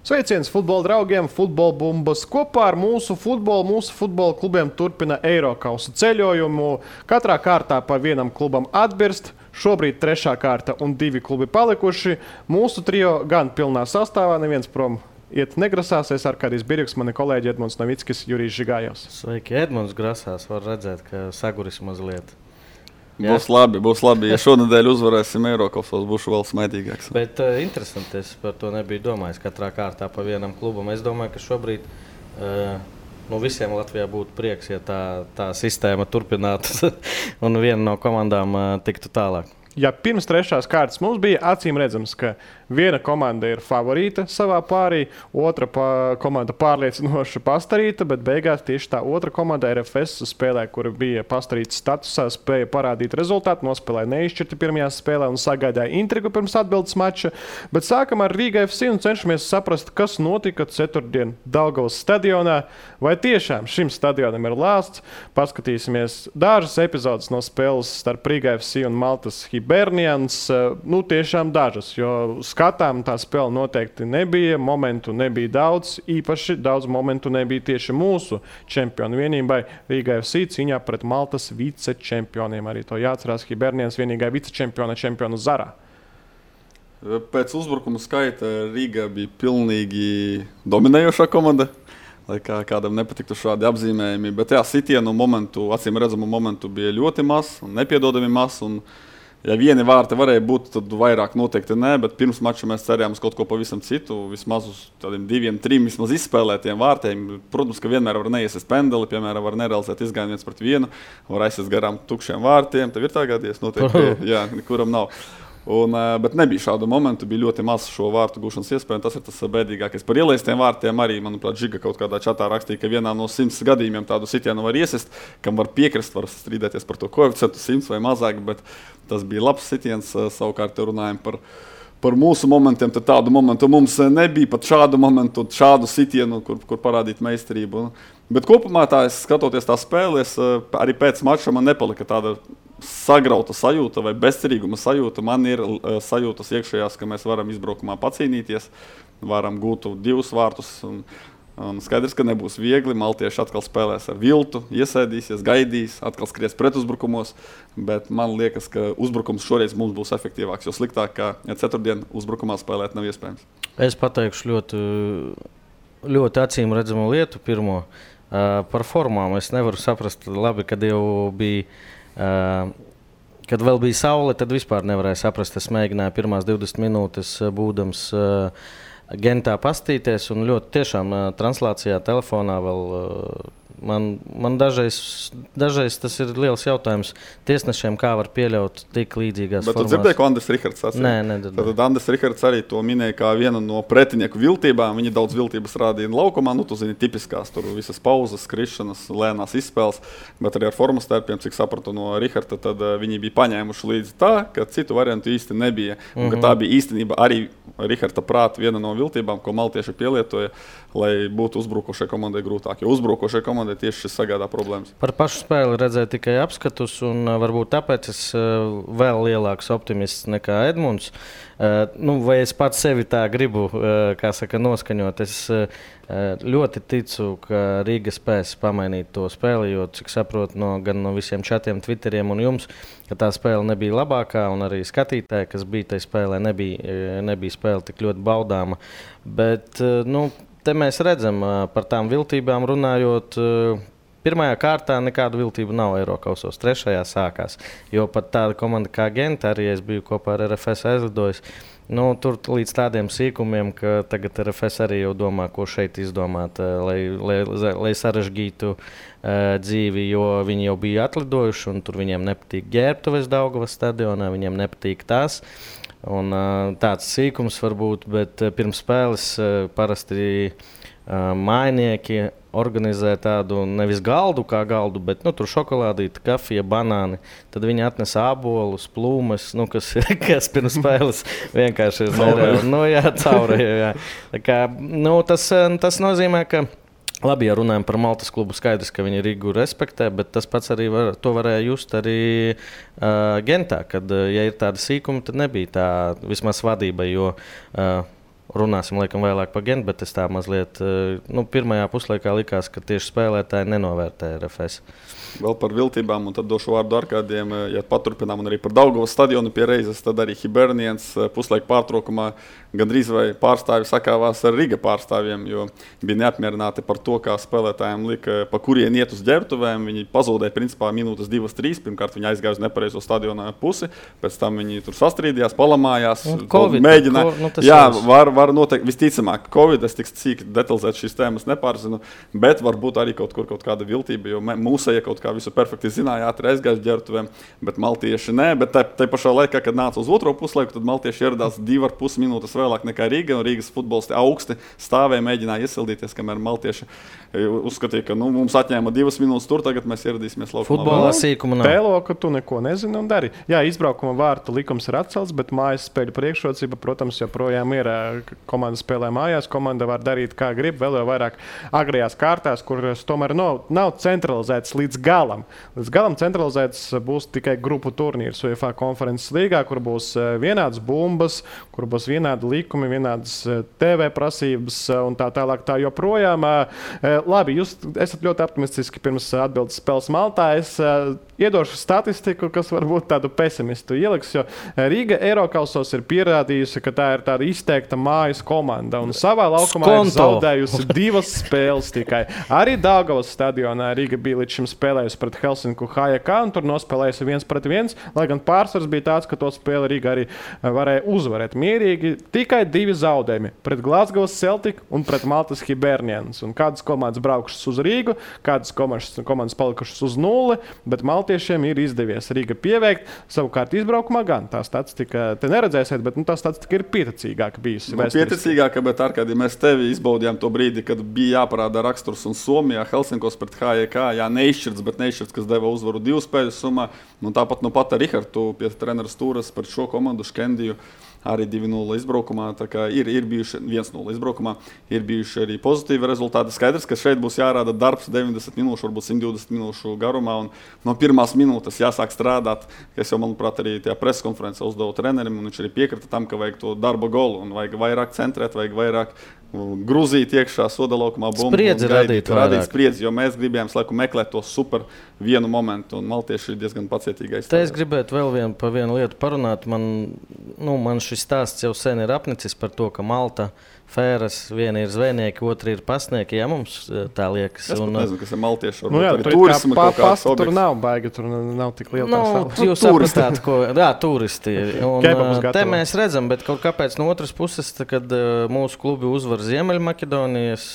Sveiciens futbola draugiem, futbola bumbas. Kopā ar mūsu futbola klubiem turpina Eirokausa ceļojumu. Katrā kārtā pa vienam klubam atbirst. Šobrīd 3. kārta un 2 klubi palikuši. Mūsu trio gan pilnā sastāvā, neviens prom iet negrasās. Es Arkādijs Birjuks, mani kolēģi Edmunds Novickis, Jurijs Žigājovs. Sveiki, Edmunds grasās. Var redzēt, ka saguris mazliet. Būs labi. Ja šonadēļ uzvarēsim Eirokausos, būšu vēl smaidīgāks. Bet interesanti, es par to nebiju domājis. Katrā kārtā pa vienam klubam. Es domāju, ka šobrīd visiem Latvijā būtu prieks, ja tā sistēma turpinātu un viena no komandām tiktu tālāk. Ja pirms 3. kārtas mums bija acīm redzams, ka viena komanda ir favorīta savā pārī, otra komanda pārliecinoši pastarīta, bet beigās tieši tā otra komanda RFS spēlē, kura bija pastarīta statusā, spēja parādīt rezultātu, nospēlēja neizšķirti pirmajā spēlē un sagādāja intrigu pirms atbildes mača. Bet sākam ar Rīga FC un cenšamies saprast, kas notika ceturtdien Daugavas stadionā. Vai tiešām šim stadionam ir lāsts? Paskatīsimies dažas epizodes no spēles starp Rīga FC un Maltas Hibernians. Tiešām dažas, jo skatām tā spēle noteikti nebija, momentu nebija daudz, īpaši daudz momentu nebija tieši mūsu čempionu vienībai Rīga FC cīņā pret Maltas vicečempioniem. Arī to jāatcerās, Hibernians vienīgā vicečempionu Zarā. Pēc uzbrukuma skaita Rīga bija pilnīgi dominējošā komanda, lai kādam nepatiktu šādi apzīmējumi, bet sitienu momentu, acīm redzamu momentu bija ļoti maz un nepiedodami maz. Ja vieni vārti varēja būt, tad vairāk noteikti nē, bet pirms mača mēs cerējām uz kaut ko pavisam citu, vismaz uz tādiem 2, 3 vismaz izspēlētiem vārtiem. Protams, ka vienmēr var neiesies pendeli, piemēram, var nerealizēt izgājienu 1-1, var aizies garām tukšiem vārtiem. Tev ir tā gadies? Noteikti, jā, nekuram nav. Bet nebija šādu momentu, bija ļoti maz šo vārtu gūšanas iespēju, un tas ir tas bēdīgākais. Par ielaistiem vārtiem arī, manuprāt, Žiga kaut kādā čatā rakstīja, ka vienā no 100 gadījumiem tādu sitienu var iesist, kam var piekrist, var strīdēties par to koeficientu 100 vai mazāk, bet tas bija labs sitiens. Savukārt runājam par mūsu momentiem, tad tādu momentu mums nebija, pat šādu momentu, šādu sitienu, kur parādīt meistarību. Bet kopumā skatoties tā spēles, arī pēc mača man nepalika tāda sagrauta sajūta vai bezcerīguma sajūta. Man ir sajūtas iekšējās, ka mēs varam izbraukumā pacīnīties, varam gūt 2 vārtus. Un skaidrs, ka nebūs viegli. Maltieši atkal spēlēs ar viltu, iesēdīsies, gaidīs, atkal skries pretuzbrukumos. Bet man liekas, ka uzbrukums šoreiz mums būs efektīvāks, jo sliktāk kā ceturtdien uzbrukumā spēlēt nav iespējams. Es pateikšu ļoti acīm redzamu lietu pirmo. Par formām es nevaru saprast labi, kad jau bija. Kad vēl bija saule, tad vispār nevarēja saprast. Es mēģināju pirmās 20 minūtes būdams Gentā pastīties, un ļoti tiešām translācijā telefonā vēl man dažreiz tas ir liels jautājums tiesnešiem, kā var pieļaut tik līdzīgās formās. Bet tu dzirdēji, ko Andris Rihards sacīja? Nē. Tad Andris Rihards arī to minēja kā vienu no pretinieku viltībām. Viņi daudz viltības rādīja laukumā, tu zini, tipiskās tur visas pauzes, skrišanas, lēnās izspēles, bet arī ar formas tērpiem, cik sapratu no Riharda, tad viņi bija paņēmuši līdzi tā, ka citu variantu īsti nebija. Un ka tā bija īstenība arī Riharda prāta viena no viltībām, ko maltieši pielietoja, lai būtu uzbrukošai komandai grūtāk, jo uzbrukošai komandai tieši šis sagādā problēmas. Par pašu spēli redzēju tikai apskatus, un varbūt tāpēc es vēl lielāks optimists nekā Edmunds. Vai es pats sevi tā gribu, noskaņot. Es ļoti ticu, ka Rīga spēs pamainīt to spēli, jo, cik saprotu, gan no visiem čatiem, Twitteriem un jums, ka tā spēle nebija labākā, un arī skatītāji, kas bija tajā spēlē, nebija spēle tik ļoti baudāma. Bet, te mēs redzam, par tām viltībām runājot, pirmajā kārtā nekādu viltību nav Eirokausos, 3. sākās. Jo pat tāda komanda kā Genta, arī es biju kopā ar RFS aizlidojis, tur līdz tādiem sīkumiem, ka tagad RFS arī jau domā, ko šeit izdomāt, lai sarežģītu dzīvi, jo viņi jau bija atlidojuši, un tur viņiem nepatīk ģērbtuves Daugavas stadionā, viņiem nepatīk tās. Un tāds sīkums varbūt, bet pirms spēles parasti mājnieki organizē tādu nevis galdu kā galdu, bet tur šokolādīti, kafija, banāni. Tad viņi atnes ābolus, plūmes, kas pirms spēles vienkārši ir nereāli. Caurēja. Tas nozīmē, ka labi, ja runājam par Maltas klubu, skaidrs, ka viņi Rīgu respektē, bet tas pats arī varēja just arī Gentā, kad, ja ir tāda sīkuma, tad nebija tā vismaz vadība, jo runāsim laikam vēlāk par Gentu, bet es tā mazliet, pirmajā puslaikā likās, ka tieši spēlētāji nenovērtē RFS. Vēl par viltībām, un tad došu vārdu Arkādiem, ja paturpinām, un arī par Daugavas stadionu pie reizes, tad arī Hibernians puslaika pārtraukumā gandrīz vai pārstāvi sakāvās ar Riga pārstāvjiem, jo bija neapmierināti par to, kā spēlētājiem lika, pa kurien iet uz ģērbtuvēm. Viņi pazūdēja principā minūtes 2-3. Pirmkārt, viņi aizgāja uz nepareizo stadiona pusi, pēc tam viņi tur sastrīdījās, palamājās, mēģināja. Var noteikti, visticamāk, Covid, es tik cīk detalizēt šīs tēmas nepārzinu, bet varbūt arī kaut kāda viltība, jo mūsēja kaut kā visu perfekti zināja, ātri aizgāja uz ģērbtuvēm, bet maltieši nē, bet tai pašā laikā, kad nāca uz otro puslaiku, tad maltieši ieradās 2,5 minūtes vēlāk nekā Rīga, un Rīgas futbolisti augsti stāvēja, mēģināja iesildīties, kamēr maltieši uzskatīja, ka mums atņēma 2 minūtes tur, tagad mēs ieradīsimies laukumā. Futbolā sīkuma nav. Tēlo, ka tu neko nezini un dari. Jā, izbraukuma vārtu likums ir atcelts, bet mājas spēļu priekšrocība, protams, joprojām ir. Komanda spēlē mājās, komanda var darīt kā grib, vēl jau vairāk agrajās kārtās, kuras tomēr nav centralizētas līdz galam. Līdz galam centralizētas būs tikai grupu turnīrs UEFA konferences līgā, kur būs vienādas bumbas, kur būs vienādi likumi, vienādas TV prasības un tā tālāk tā joprojām. Labi, jūs esat ļoti optimistiski pirms atbildes spēles Maltā. Es iedošu statistiku, kas varbūt tādu pesimistu ieliks, jo Rīga Eirokausos ir pierādījusi, ka tā ir tāda izteikta mājas komanda un savā laukumā ir zaudējusi 2 spēles tikai. Arī Daugavas stadionā Rīga bija līdz šim spēlējusi pret Helsinku HJK un tur nospēlējusi 1-1, lai gan pārsvars bija tāds, ka to spēli Rīga arī varēja uzvarēt mierīgi. Tikai 2 zaudējumi pret Glasgow Celtic un pret Maltas Hibernians. Un kādas komandas braukušas uz Rīgu, kādas komandas palikušas uz 0, bet maltiešiem ir izdevies Rīga pieveikt. Savukārt izbraukumā gan tā statistika, te neredzēsiet, bet tā statistika ir pieticīgāka bijusi. Pieticīgāka, bet Arkadi, mēs tevi izbaudījām to brīdi, kad bija jāparāda raksturs un Somijā Helsinkos pret HJK, neizšķirts, kas deva uzvaru 2 spēļu summā. Tāpat pat ar Rihardu pie trenera stūras par šo komandu Škendiju. Arī 2-0 izbraukumā, tā kā ir bijuši 1-0 izbraukumā, ir bijuši arī pozitīvi rezultāti. Skaidrs, ka šeit būs jārāda darbs 90 minūšu, varbūt 120 minūšu garumā, un no pirmās minūtes jāsāk strādāt. Es jau, manuprāt, arī tajā preskonferencē uzdevu trenerim, un viņš arī piekrita tam, ka vajag to darba golu, un vajag vairāk centrēt, vajag vairāk gruzīt iekšā soda laukumā bumbu. Spriedzi radīt spriedzi, jo mēs gribējām laiku meklēt to super vienu momentu, un maltieši ir diezgan pacietīgi aizstāvēt. Te es gribētu vēl par vienu lietu parunāt. Man šis stāsts jau sen ir apnicis par to, ka Malta Fēras, viena ir zvejnieki, otra ir pasnieki. Jā, mums tā liekas. Es nezinu, kas ir maltieši. Tur nav baigi, tur nav tik liela tā sala. Jūs sapratāt, ko... Jā, turisti. Te mēs redzam, bet kaut kāpēc no otras puses, kad mūsu klubi uzvar Ziemeļmaķedonijas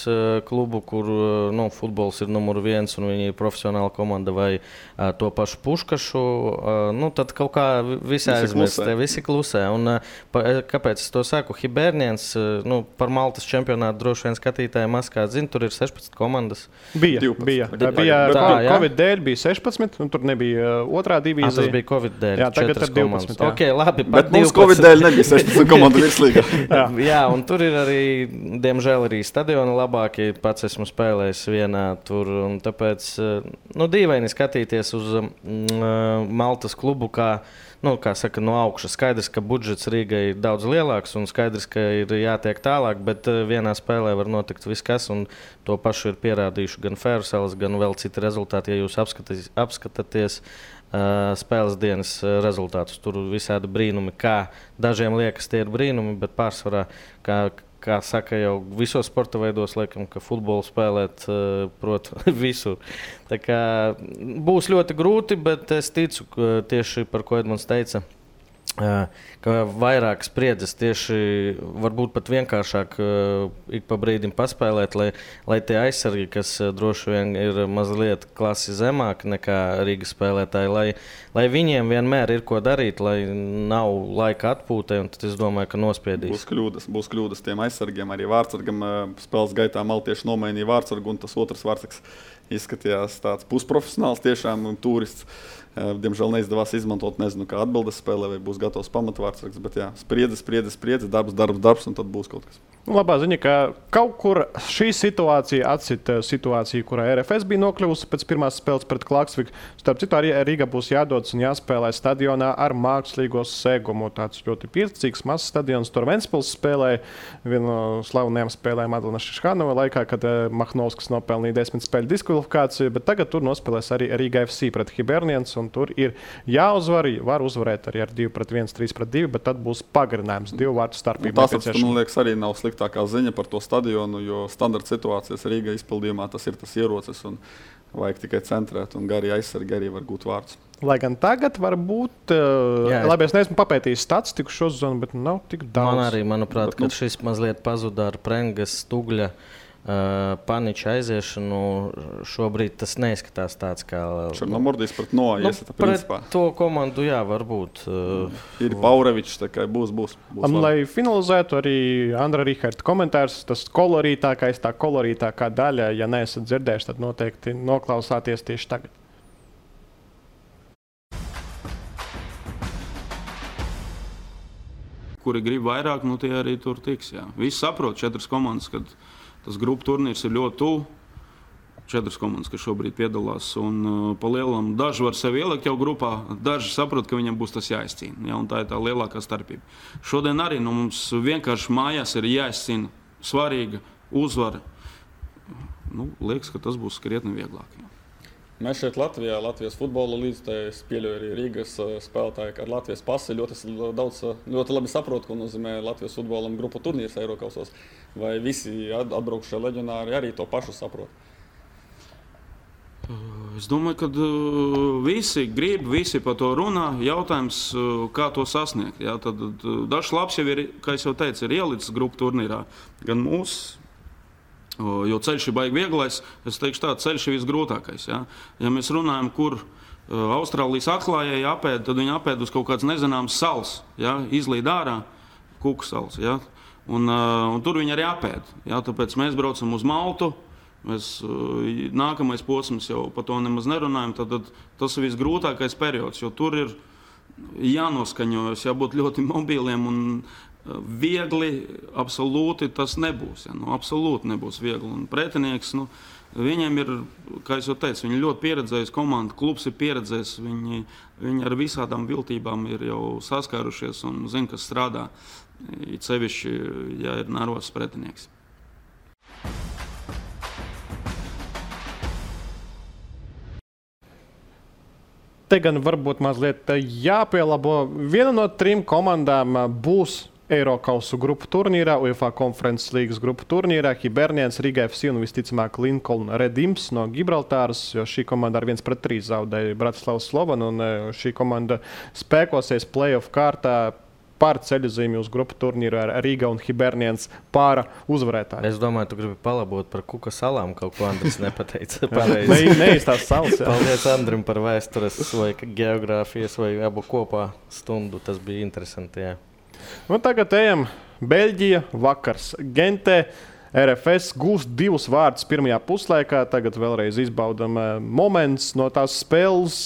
klubu, kur futbols ir numur 1 un viņi ir profesionāla komanda, vai to pašu Puškašu, tad kaut kā visi aizmirst, visi klusē. Un kāpēc es to saku? Hibernians, par Maltas čempionātu droši vien skatītāji maskā zina, tur ir 16 komandas. Bija. Covid dēļ bija 16, un tur nebija otrā divīzija. Tas bija Covid dēļ. Jā, tagad ir 12. Jā. Okay, labi, bet mums Covid dēļ nebija 16 komandu virslīgā. Jā, un tur ir arī, diemžēl, arī stadioni labākie. Pats esmu spēlējis vienā tur, un tāpēc dīvaini skatīties uz Maltas klubu, kā saka, no augšas. Skaidrs, ka budžets Rīgai ir daudz lielāks un skaidrs, ka ir jātiek tālāk, bet vienā spēlē var notikt viss kas, un to pašu ir pierādījuši gan Fēruselas, gan vēl citi rezultāti. Ja jūs apskatāties spēles dienas rezultātus, tur visādi brīnumi, kā dažiem liekas tie ir brīnumi, bet pārsvarā, kā saka jau visos sporta veidos, laikam, ka futbolu spēlēt prot visur. Tā kā būs ļoti grūti, bet es ticu, tieši par ko Edmunds teica, ka vairāk spriedzes tieši varbūt pat vienkāršāk ik pa brīdim paspēlēt, lai tie aizsargi, kas droši vien ir mazliet klasi zemāk nekā Rīgas spēlētāji, lai viņiem vienmēr ir ko darīt, lai nav laika atpūtai, un tad es domāju, ka nospiedīs. Būs kļūdas tiem aizsargiem, arī vārtsargam spēles gaitā maltieši nomainīja vārtsargu, un tas otrs vārtsargs izskatījās tāds pusprofesionāls tiešām un turists. Diemžēl neizdevās izmantot, nezinu, kā atbildes spēlē, vai būs gatavs pamatvārdsargs, bet jā, spriedze, darbs, un tad būs kaut kas. Labā ziņa, ka kaut kur šī situācija atcita situāciju, kurā RFS bija nokļuvusi pēc pirmās spēles pret Klaksviku. Starp citu, arī Rīga būs jādodas un jāspēlē stadionā ar mākslīgo segumu. Tāds ļoti pieticīgs, mazs stadions. Tur Ventspils spēlēja vienu no slavenajām spēlēm Adlana Šiškanova laikā, kad Mahnovskis nopelnīja 10 spēļu diskvalifikāciju, bet tagad tur nospēlēs arī Rīga FC pret Hibernians, un tur ir jāuzvar. Var uzvarēt arī ar 2-1, 3-2, bet tad būs pagarinājums 2 vārtu starpība. Man liekas, arī nav sliktākā ziņa par to stadionu, jo standarta situācijas Rīgā izpildījumā tas ir tas ierocis un vajag tikai centrēt un gari aizsargi arī var gūt vārdus. Lai gan tagad varbūt, labi, es neesmu papētījis statistiku šo zonu, bet nav tik daudz. Man arī, manuprāt, ka šis mazliet pazuda ar Prengas, Stugļa, Paniča aiziešanu. Šobrīd tas neizskatās tāds kā... Černomordijs pret Noa, iesata principā. Pret to komandu, jā, varbūt. Ir Paurevičs, tā kā būs lai finalizētu arī Andra Riharta komentārs, tas kolorītākais, tā kolorītākā daļa, ja neesat dzirdējuši, tad noteikti noklausāties tieši tagad. Kuri grib vairāk, nu tie arī tur tiks, jā. Visi saprot 4 komandas, kad tas grupu turnīrs ir ļoti tuvu. 4 komandas, kas šobrīd piedalās. Un pa lielam daži var sevi ielikt jau grupā, daži saprot, ka viņam būs tas jāizcīna. Ja, un tā ir tā lielākā starpība. Šodien arī mums vienkārši mājās ir jāizcīna svarīga uzvara. Liekas, ka tas būs krietni vieglāk. Ja. Mēs šeit Latvijā, Latvijas futbola līdz pieļauj arī Rīgas spēlētāji, ka ar Latvijas pasi ļoti labi saprot, ko nozīmē Latvijas futbolam grupu turnīrs Eirokausos. Vai visi atbraukšie leģionāri arī to pašu saprot? Es domāju, ka visi grib, visi par to runā. Jautājums, kā to sasniegt. Ja? Tad dažs labs jau ir, kā es jau teicu, ir ielicis grupu turnīrā. Gan mūsu. Jo ceļš ir baigi vieglais, es teikšu tā, ceļš ir visgrūtākais. Ja mēs runājam, kur Austrālijas atklājēji apēd, tad viņi apēd uz kaut kāds nezināms sals, izlīd ārā, Kuku sals. Un tur viņi arī apēd. Tāpēc mēs braucam uz Maltu, nākamais posms jau par to nemaz nerunājam, tad tas ir visgrūtākais periods, jo tur ir jānoskaņojas, jābūt ļoti mobiliem un viegli, absolūti tas nebūs. Absolūti nebūs viegli. Un pretinieks, viņiem ir, kā es jau teicu, viņi ļoti pieredzējis komanda, klubs ir pieredzējis, viņi ar visādām viltībām ir jau saskārušies un zina, kas strādā. It sevišķi, ja ir nervozs pretinieks. Te gan varbūt mazliet jāpielabo. Viena no 3 komandām būs Eirokausu grupu turnīrā, UEFA Conference Līgas grupu turnīrā, Hibernians, Riga FC un visticamāk Lincoln Redims no Gibraltāras, jo šī komanda ar 1-3 zaudēja Bratislavas Slovanu, un šī komanda spēkosies play-off kārtā par ceļojumu uz grupu turnīru ar Riga un Hibernians pāra uzvarētāju. Es domāju, tu gribi palabot par Kuka salām, kaut ko Andris nepateica. Neīstās salas. Paldies Andrim par vēstures vai geogrāfijas vai abu kopā stundu. Tas bija interesanti, jā. Tagad ejam Beļģija, vakars Gentē. RFS gūst 2 vārdus pirmajā puslaikā. Tagad vēlreiz izbaudam moments no tās spēles.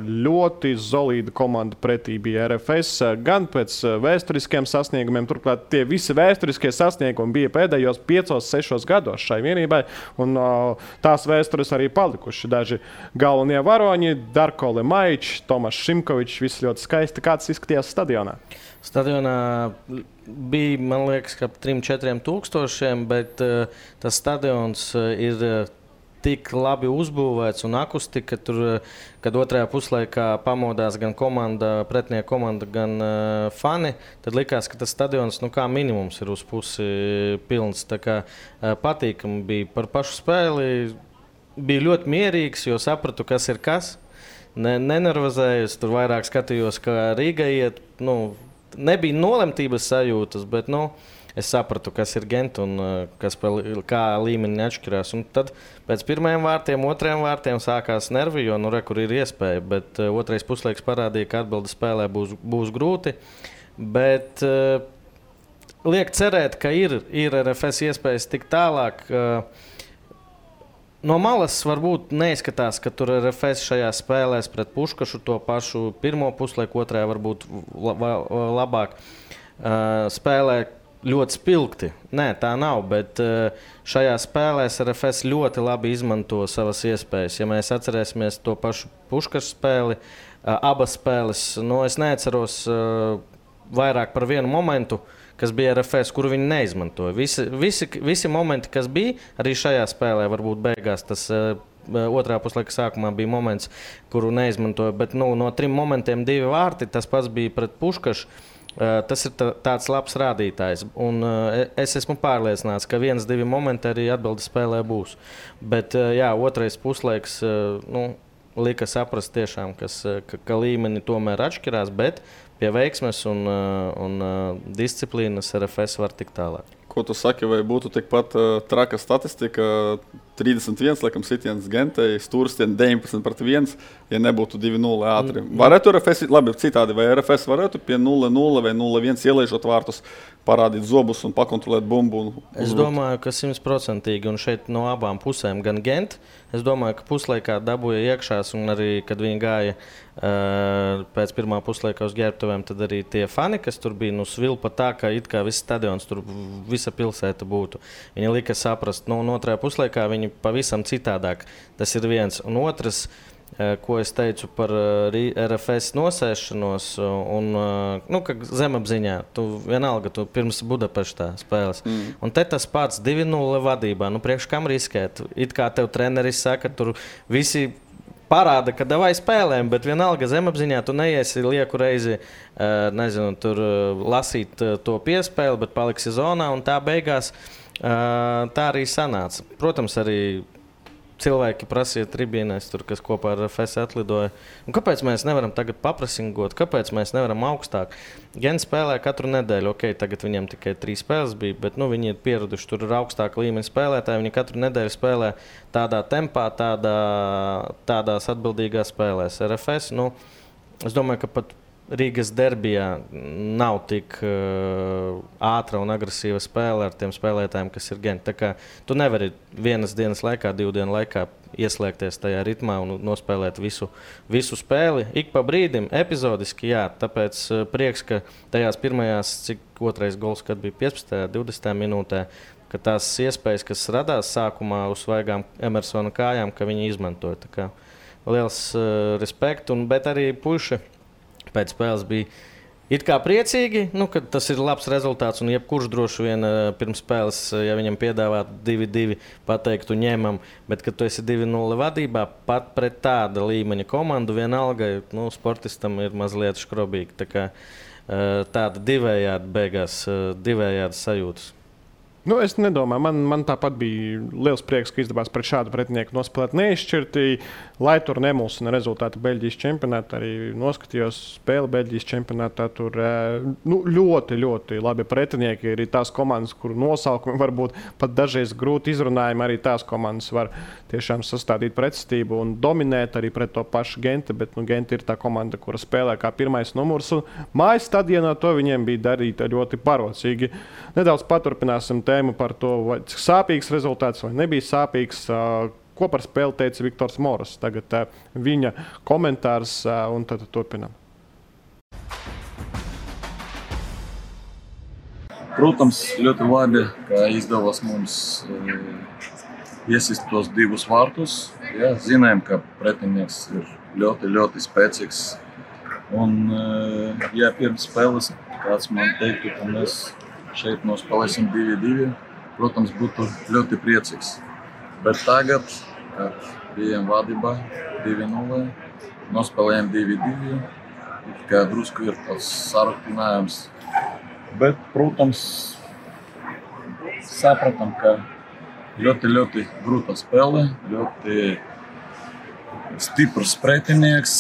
Ļoti solīda komanda pretī bija RFS. Gan pēc vēsturiskiem sasniegumiem. Turklāt tie visi vēsturiskie sasniegumi bija pēdējos 5-6 gados šai vienībai. Un tās vēstures arī palikuši. Daži galvenie varoņi, Darko Lemaičs, Tomašs Šimkovičs. Viss ļoti skaisti. Kāds izskatījās stadionā? Stadionā bija, man liekas, ka 3-4 tūkstošiem, bet tas stadions ir tik labi uzbūvēts un akustika, tur, kad otrajā puslaikā pamodās gan komanda, pretinieka komanda, gan fani, tad likās, ka tas stadions, kā minimums, ir uz pusi pilns. Tā kā patīkami bija par pašu spēli, bija ļoti mierīgs, jo sapratu, kas ir kas. Nenervozējos, tur vairāk skatījos, kā Rīga iet, nebija nolemtības sajūtas, bet es sapratu, kas ir Gent un kā līmeni atšķirās. Un tad pēc pirmajiem vārtiem, otrajiem vārtiem sākās nervi, jo kur ir iespēja. Bet otrais puslaiks parādīja, ka atbilde spēlē būs grūti. Bet liek cerēt, ka ir RFS iespējas tik tālāk. No malas varbūt neizskatās, ka tur RFS šajā spēlēs pret Puškašu to pašu pirmo puslaiku, otrajā varbūt labāk spēlē ļoti spilgti. Nē, tā nav, bet šajā spēlēs RFS ļoti labi izmanto savas iespējas. Ja mēs atcerēsimies to pašu Puškas spēli, abas spēles, es neatceros vairāk par vienu momentu, kas bija RFS, kuru viņi neizmantoja. Visi momenti, kas bija, arī šajā spēlē varbūt beigās tas otrā puslaika sākumā bija moments, kuru neizmantoja, bet no 3 momentiem 2 vārti, tas pats bija pret Puškašu. Tas ir tāds labs rādītājs. Un es esmu pārliecināts, ka 1-2 momenti arī atbildes spēlē būs. Bet otrais puslaiks lika saprast tiešām, ka līmeni tomēr atšķirās, bet pie veiksmes un disciplīnas RFS var tikt tālāk. Ko tu saki, vai būtu tikpat traka statistika? 31, laikam, sitiens Gentei, Stūrstien 19-1, ja nebūtu 2-0 ātri. Varētu RFS, labi, citādi, vai RFS varētu pie 0-0 vai 0-1 ielaižot vārtus, parādīt zobus un pakontrolēt bumbu? Es domāju, ka 100%, un šeit no abām pusēm, gan Gent, es domāju, ka puslaikā dabūja iekšās, un arī, kad viņi gāja pēc pirmā puslaika uz ģērbtuvēm, tad arī tie fani, kas tur bija, svilpa tā, ka it kā viss stadions, tur visa pilsēta būtu. Viņi lika saprast, un otrajā puslaikā viņi pavisam citādāk. Tas ir viens. Un otrs, ko es teicu par RFS nosēšanos, ka zemapziņā, tu vienalga, tu pirms Budapeštā spēles. Un te tas pats 2-0 vadībā, priekš kam riskēt? It kā tev treneris saka, tur visi parāda, ka davai spēlēm, bet vienalga zemapziņā tu neiesi lieku reizi, tur lasīt to piespēli, bet paliksi zonā, un tā beigās tā arī sanāca. Protams, arī cilvēki prasīja tribīnēs, kas kopā ar RFS atlidoja. Un kāpēc mēs nevaram tagad paprasingot? Kāpēc mēs nevaram augstāk? Gens spēlē katru nedēļu. Tagad viņiem tikai 3 spēles bija, bet viņi ir pieraduši, tur ir augstāka līmeņa spēlētāji. Viņi katru nedēļu spēlē tādā tempā, tādās atbildīgās spēlēs. RFS, es domāju, ka pat Rīgas derbijā nav tik ātra un agresīva spēle ar tiem spēlētājiem, kas ir Gent. Tā kā tu nevari vienas dienas laikā, 2 dienu laikā ieslēgties tajā ritmā un nospēlēt visu spēli. Ik pa brīdim, epizodiski, jā. Tāpēc prieks, ka tajās pirmajās, cik otrais gols, kad bija 15. 20. minūtē, ka tās iespējas, kas radās sākumā uz svaigām Emersona kājām, ka viņi izmantoja. Tā kā liels respekt, bet arī puiši pēc spēles bija it kā priecīgi, ka tas ir labs rezultāts. Un jebkurš droši vien pirms spēles, ja viņam piedāvātu 2-2, pateiktu ņemam, bet kad tu esi 2-0 vadībā, pat pret tāda līmeņa komandu vienalga, sportistam ir mazliet škrobīgi. Tā kā tāda divējādi beigās, divējādi sajūtas. Es nedomāju, man tāpat bija liels prieks, ka izdevās pret šādu pretinieku nospēlēt neizšķirti, lai tur nemulsina rezultāti Beļģijas čempionātā. Arī noskatījos spēli Beļģijas čempionātā. Tur ļoti, ļoti labi pretinieki. Arī tās komandas, kuru nosaukumi varbūt pat dažreiz grūti izrunājami, arī tās komandas var tiešām sastādīt pretstību un dominēt arī pret to pašu Genti. Bet Genti ir tā komanda, kura spēlē kā pirmais numurs. Un mājas stadionā to viņiem bija darīt ļoti parocīgi. Nedaudz paturpināsim tēmu par to, cik sāpīgs rezultāts vai nebija sāpīgs. Ko par spēli teica Viktors Moras? Tagad viņa komentārs un tad turpinām. Protams, ļoti labi, ka izdevās mums iesist tos 2 vārtus. Ja, zinājām, ka pretinieks ir ļoti, ļoti spēcīgs. Un, ja pirms spēles kāds man teiktu, ka mēs šeit nospēlēsim 2-2, protams, būtu ļoti priecīgs. Bet tagad, kad bijām vadībā 2-0, nospēlējām 2-2, kā drusku ir tāds sarūktinājums. Bet, protams, sapratam, ka ļoti, ļoti grūta spēle, ļoti stiprs pretinieks,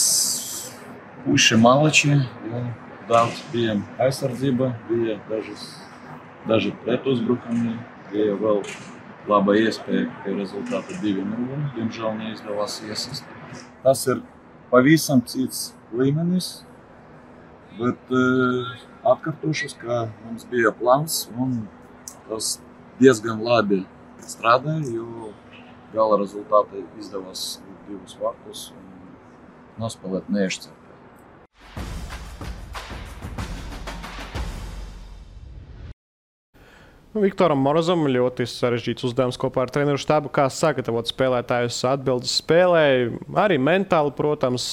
puši malači, ja, daudz bijām aizsardzība, bija daži pretuzbrukumi, bija vēl laba iespēja, ka rezultāti 2-0, diemžēl neizdevās iesist. Tas ir pavisam cits līmenis, bet atkārtošos, ka mums bija plāns un tas diezgan labi strādāja, jo gala rezultāti izdevās 2 vārtus un nospēlēt neiešķirtē. Viktoram Morozam ļoti sarežģīts uzdevums kopā ar treneru štābu, kā sagatavot spēlētājus atbildes spēlē. Arī mentāli, protams,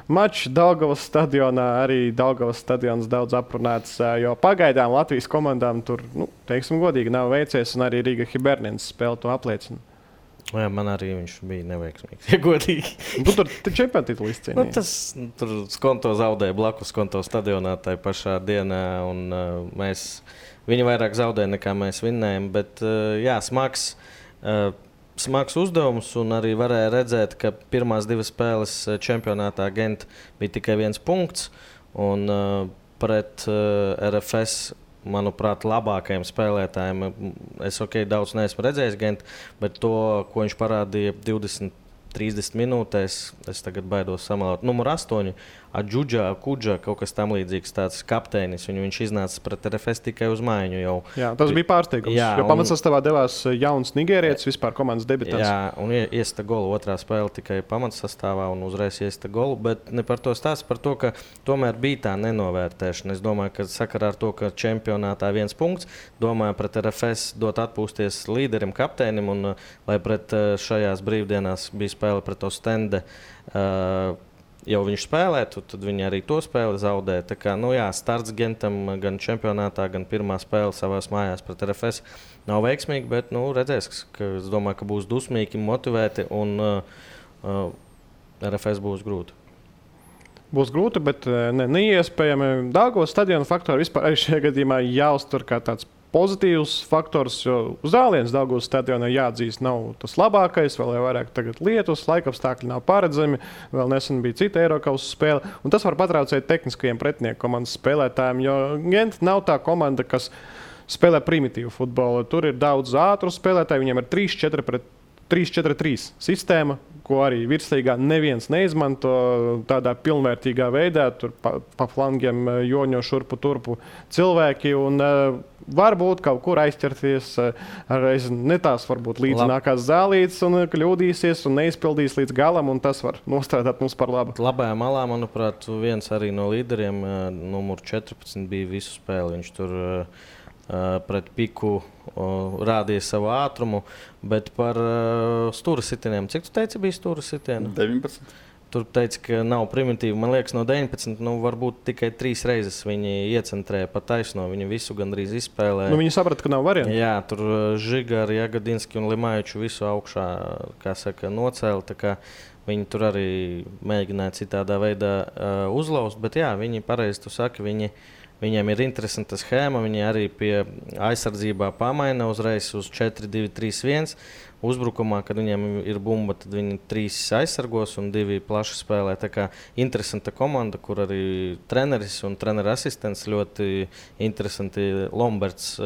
mačs Daugavas stadionā, arī Daugavas stadions daudz aprunāts, jo pagaidām Latvijas komandām tur, teiksim godīgi, nav veicies, un arī Riga Hibernens spēle to apliecina. Jā, man arī viņš bija neveiksmīgs, ja godīgi. Tur čempionu titulu izcīnīja. Tur Skonto zaudēja blakus Skonto stadionā tajā pašā dienā, un viņi vairāk zaudēja nekā mēs vinnējam. Bet jā, smags uzdevums, un arī varēja redzēt, ka pirmās 2 spēles čempionātā Gent bija tikai 1 punkts, un pret RFS, manuprāt, labākajiem spēlētājiem. Es daudz neesmu redzējis Gent, bet to, ko viņš parādīja 20-30 minūtēs, es tagad baidos samalot. Numur 8, Kudža, kaut kas tam līdzīgs, tāds kapteinis. Viņš iznāca pret RFS tikai uz mājiņu jau. Jā, tas bija pārsteigums, jo pamatsastāvā devās jauns nigērietis, vispār komandas debitants. Jā, un iesta golu otrā spēle tikai pamatsastāvā un uzreiz iesta golu, bet ne par to stāsts, par to, ka tomēr bija tā nenovērtēšana. Es domāju, ka sakarā ar to, ka čempionātā 1 punkts, domāju pret RFS dot atpūsties līderim, kapteinim, un lai pret šajās brīvdienās bija spēle pret Ostende, jau viņš spēlētu, tad viņi arī to spēli zaudēja. Tā kā, starts Gentam gan čempionātā, gan pirmā spēle savās mājās pret RFS nav veiksmīgi, bet redzēs, ka es domāju, ka būs dusmīgi, motivēti, un RFS būs grūti. Būs grūti, bet neiespējami. Daugavas stadiona faktori vispār arī šajā gadījumā jāuztur kā tāds pozitīvs faktors, jo zāliens Daugavas stadionā jāatzīst nav tas labākais, vēl vairāk tagad lietus, laikapstākļi nav paredzami, vēl nesen bija cita Eirokausas spēle, un tas var patraucēt tehniskajiem pretinieku komandas spēlētājiem, jo Gent nav tā komanda, kas spēlē primitīvu futbolu. Tur ir daudz ātru spēlētāju, viņiem ir 3-4-3 sistēma, ko arī virslīgā neviens neizmanto tādā pilnvērtīgā veidā. Tur pa flangiem joņo šurpu turpu cilvēki, un varbūt kaut kur aizķerties ne tās varbūt līdzinājās zālītes un kļūdīsies un neizpildīs līdz galam, un tas var nostrādāt mums par labu. Labajā malā, manuprāt, viens arī no līderiem, numur 14, bija visu spēli. Viņš tur pret Piku rādīja savu ātrumu, bet par stūra sitieniem. Cik tu teici bija stūra sitieni? 19. Tur teica, ka nav primitīvi. Man liekas, no 19, varbūt tikai 3 reizes viņi iecentrēja pa taisno. Viņi visu gandrīz izspēlēja. Viņi saprata, ka nav variantu. Jā, tur Žigari, Jagadinski un Limājuču visu augšā, nocēla. Tā kā viņi tur arī mēģināja citādā veidā uzlauzt, bet jā, viņi pareizi tu saki, viņiem ir interesanta schēma. Viņi arī pie aizsardzībā pamaina uzreiz uz 4-2-3-1. Uzbrukumā, kad viņiem ir bumba, tad viņi 3 aizsargos un 2 plaši spēlē. Tā kā interesanta komanda, kur arī treneris un treneru asistents ļoti interesanti. Lomberts,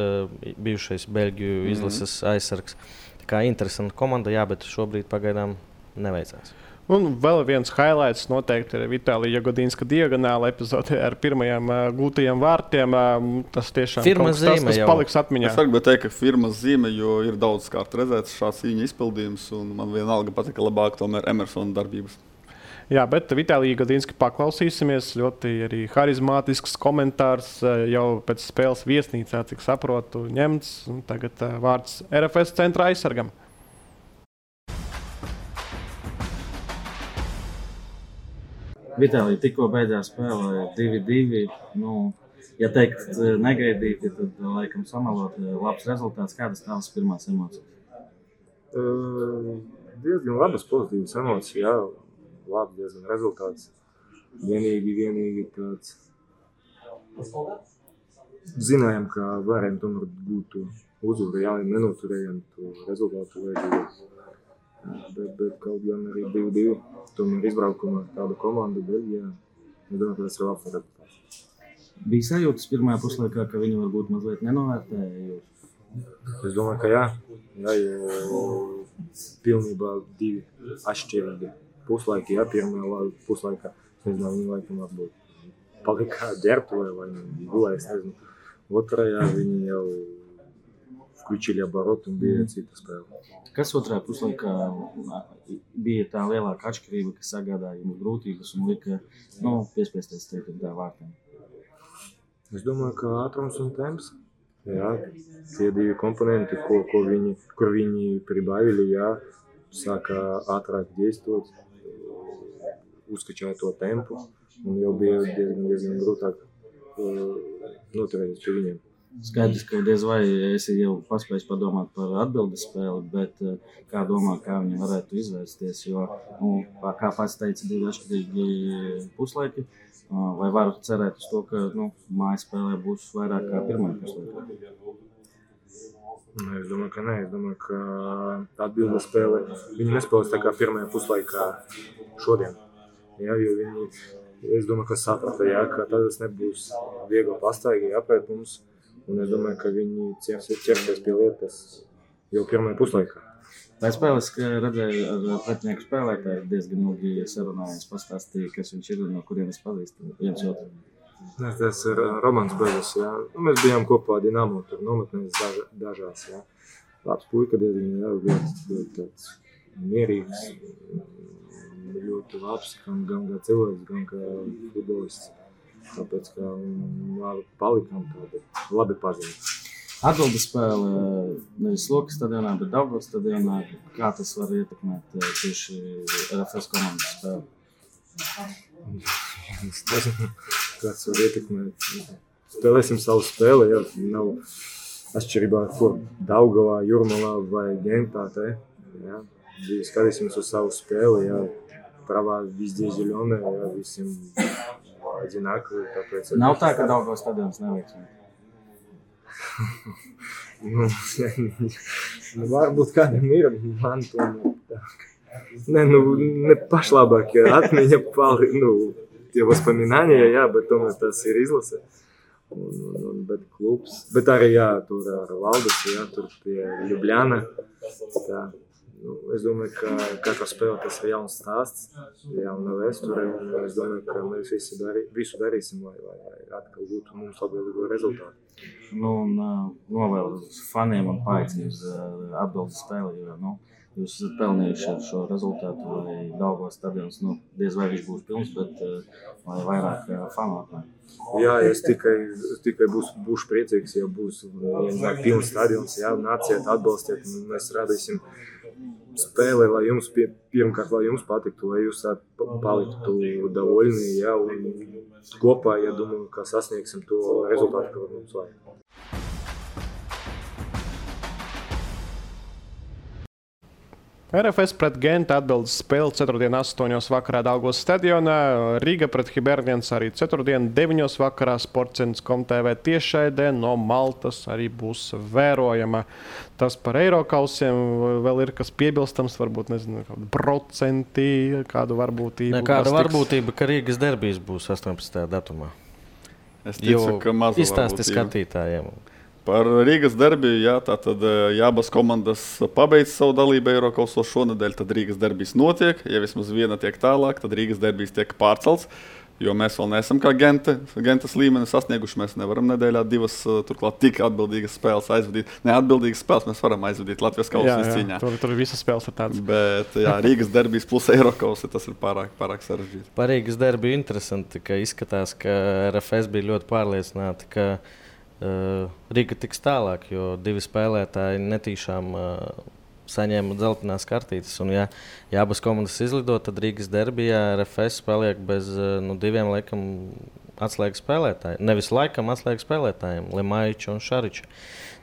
bijušais Beļģiju izlases aizsargs. Tā kā interesanta komanda, jā, bet šobrīd pagaidām neveicās. Un vēl viens highlights noteikti ir Vitālija Jagodinska diagonāla epizode ar pirmajiem gūtajiem vārtiem. Tas tiešām tas paliks atmiņā. Es varu teikt, ka firmas zīme, jo ir daudz kārt redzēts šāds viņa izpildījums, un man vienalga patika labāk tomēr Emersona darbības. Jā, bet Vitālija Jagodinska paklausīsimies. Ļoti arī harizmātisks komentārs jau pēc spēles viesnīcā, cik saprotu, ņemts. Tagad vārds RFS centra aizsargam. Vitālija tikko beidzās spēlē 2-2. Ja teikt negaidīti, tad laikam samalot labs rezultāts. Kādas tavas pirmās emocijas? Diezgan labas pozitīvas emocijas, jā. Labs diezgan rezultāts. Vienīgi tāds. Zinājām, ka varējām tomēr būt to uzvaru, jā, nenoturējām to rezultātu vajadzības. Bet kaut gan arī 2-2. Tomēr izbraukumā tāda komanda Beļģijā. Es domāju, ka tas ir labs rezultāts. Bija sajūtas pirmajā puslaikā, ka viņi varbūt mazliet nenovērtēja? Es domāju, ka jā. Jo pilnībā 2 atšķirīgi puslaiki. Jā, pirmajā puslaikā, es nezinu, viņi laikam varbūt palika ģērbtuvē vai gulēs, nezinu. Otrajā viņi jau включили оборот un bija cita spēle. Kas otrajā puslaikā bija tā lielāka atšķirība, kas sagādāja jums grūtības un lika piespiesties teikt tā vārtiem? Es domāju, ka ātrums un temps. Jā, tie 2 komponenti, kur viņi pribavili, jā, sāka ātrāk действовать, uzskačāja to tempu, un jau bija diezgan grūtāk noturēties pie viņiem. Skaidrs, ka diez vai esi jau paspējis padomāt par atbildes spēli, bet kā domā, kā viņi varētu izvērsties, jo, kā pats teica, 2 atšķirīgi puslaiki, vai varu cerēt uz to, ka mājas spēlē būs vairāk kā pirmajā puslaikā? Es domāju, ka nē. Es domāju, ka atbildes spēle, viņi nespēlēs tā kā pirmajā puslaikā šodien. Jā, jo viņi, es domāju, ka saprata, jā, ka tas nebūs viegli pastaigi jāpēt mums. Un es domāju, ka viņi ķersies pie lietas jau pirmajā puslaikā. Pēc spēles redzēju ar pretinieku spēlētāju diezgan ilgi sarunājies, pastāstīja, kas viņš ir un no kurienes pazīst viens otru. Tas ir Romans Belis, jā. Mēs bijām kopā Dinamo, tur nometnēs dažās, jā. Labs puika diezgan, jā, ļoti tāds mierīgs, ļoti labs, gan kā cilvēks, gan kā futbolists. Tāpēc, ka palikām tādi labi pazīti. Atbildes spēle nevis Lokas stadionā, bet Daugavas stadionā. Kā tas var ietekmēt tieši RFS komandas spēli? Es nezinu, kāds var ietekmēt. Spēlēsim savu spēli, jā. Nav atšķirībā, kur Daugavā, Jūrmalā vai Gentā, jā. Skatīsimies uz savu spēli, jā. Pravā везде зелёная, jā, visiem одинаковые, tāpēc... Nav tā, ka Daugavas stadions neveiksmē? Varbūt kādam ir, man tomēr tā. Ne pašlabāk atmiņa tie воспоминания, jā, bet tomēr tas ir izlase. Bet klubs, bet arī, jā, tur ar Valdis, jā, tur pie Ljubljana, tā. Es domāju, ka katra spēle tas ir jauns stāsts, jauna vēsture, un es domāju, ka mēs visu darīsim, lai atkal būtu mums labvēlīgo rezultātu. Novēlu faniem un paaicinu uz atbildes spēli, jo jūs esat pelnījuši ar šo rezultātu, lai Daugavas stadions, diez vai viņš būs pilns, bet lai vairāk fanu atnāk. Jā, es tikai būšu priecīgs, ja būs pilns stadions, jā, nāciet, atbalstiet, un mēs radīsim spēlē, lai jums pirmkārt, lai jums patiktu, lai jūs paliktu довольны, jā, un kopā, ja domāju, ka sasniegsim to rezultātu, ko mums vajag. RFS pret Genta atbildes spēle 4.8. vakarā Daugavas stadionā, Riga pret Hibernians arī 4.9. vakarā Sports.com TV tiešraidē no Maltas arī būs vērojama. Tas par Eirokausiem vēl ir kas piebilstams, varbūt, nezinu, procenti, kādu varbūtību. Kāda varbūtība, ka Rīgas derbijs būs 18. datumā? Es ticu, ka maza izstāsti varbūtība. skatītājiem. Par Rīgas derbiju, jā, tātad abas komandas pabeidz savu dalību Eirokausos šonedēļ, tad Rīgas derbijs notiek. Ja vismaz viena tiek tālāk, tad Rīgas derbijs tiek pārcelts, jo mēs vēl neesam kā Gentas līmeni sasnieguši. Mēs nevaram nedēļā 2 turklāt tik atbildīgas spēles aizvadīt. Neatbildīgas spēles mēs varam aizvadīt Latvijas kausa izcīņā. Tur visas spēles ir tādas. Bet jā, Rīgas derbijs plus Eirokausi, tas ir pārāk sarežģīti. Par Rīgas derbiju interesanti, ka izskatās, ka RFS bija ļoti pārliecināti, ka Riga tiks tālāk, jo 2 spēlētāji netīšām saņēma dzeltenās kartītes. Un, ja abas komandas izlido, tad Rīgas derbijā RFS paliek bez 2 laikam atslēgas spēlētājiem. Nevis laikam atslēgas spēlētājiem, Lemaiča un Šariča.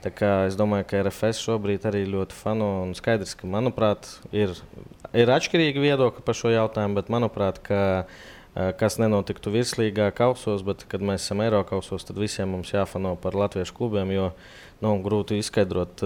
Tā kā es domāju, ka RFS šobrīd arī ļoti fano un skaidrs, ka, manuprāt, ir atšķirīgi viedokļi par šo jautājumu, bet, manuprāt, kas nenotiktu virslīgā kausos, bet, kad mēs esam Eirokausos, tad visiem mums jāfano par latviešu klubiem, jo grūti izskaidrot,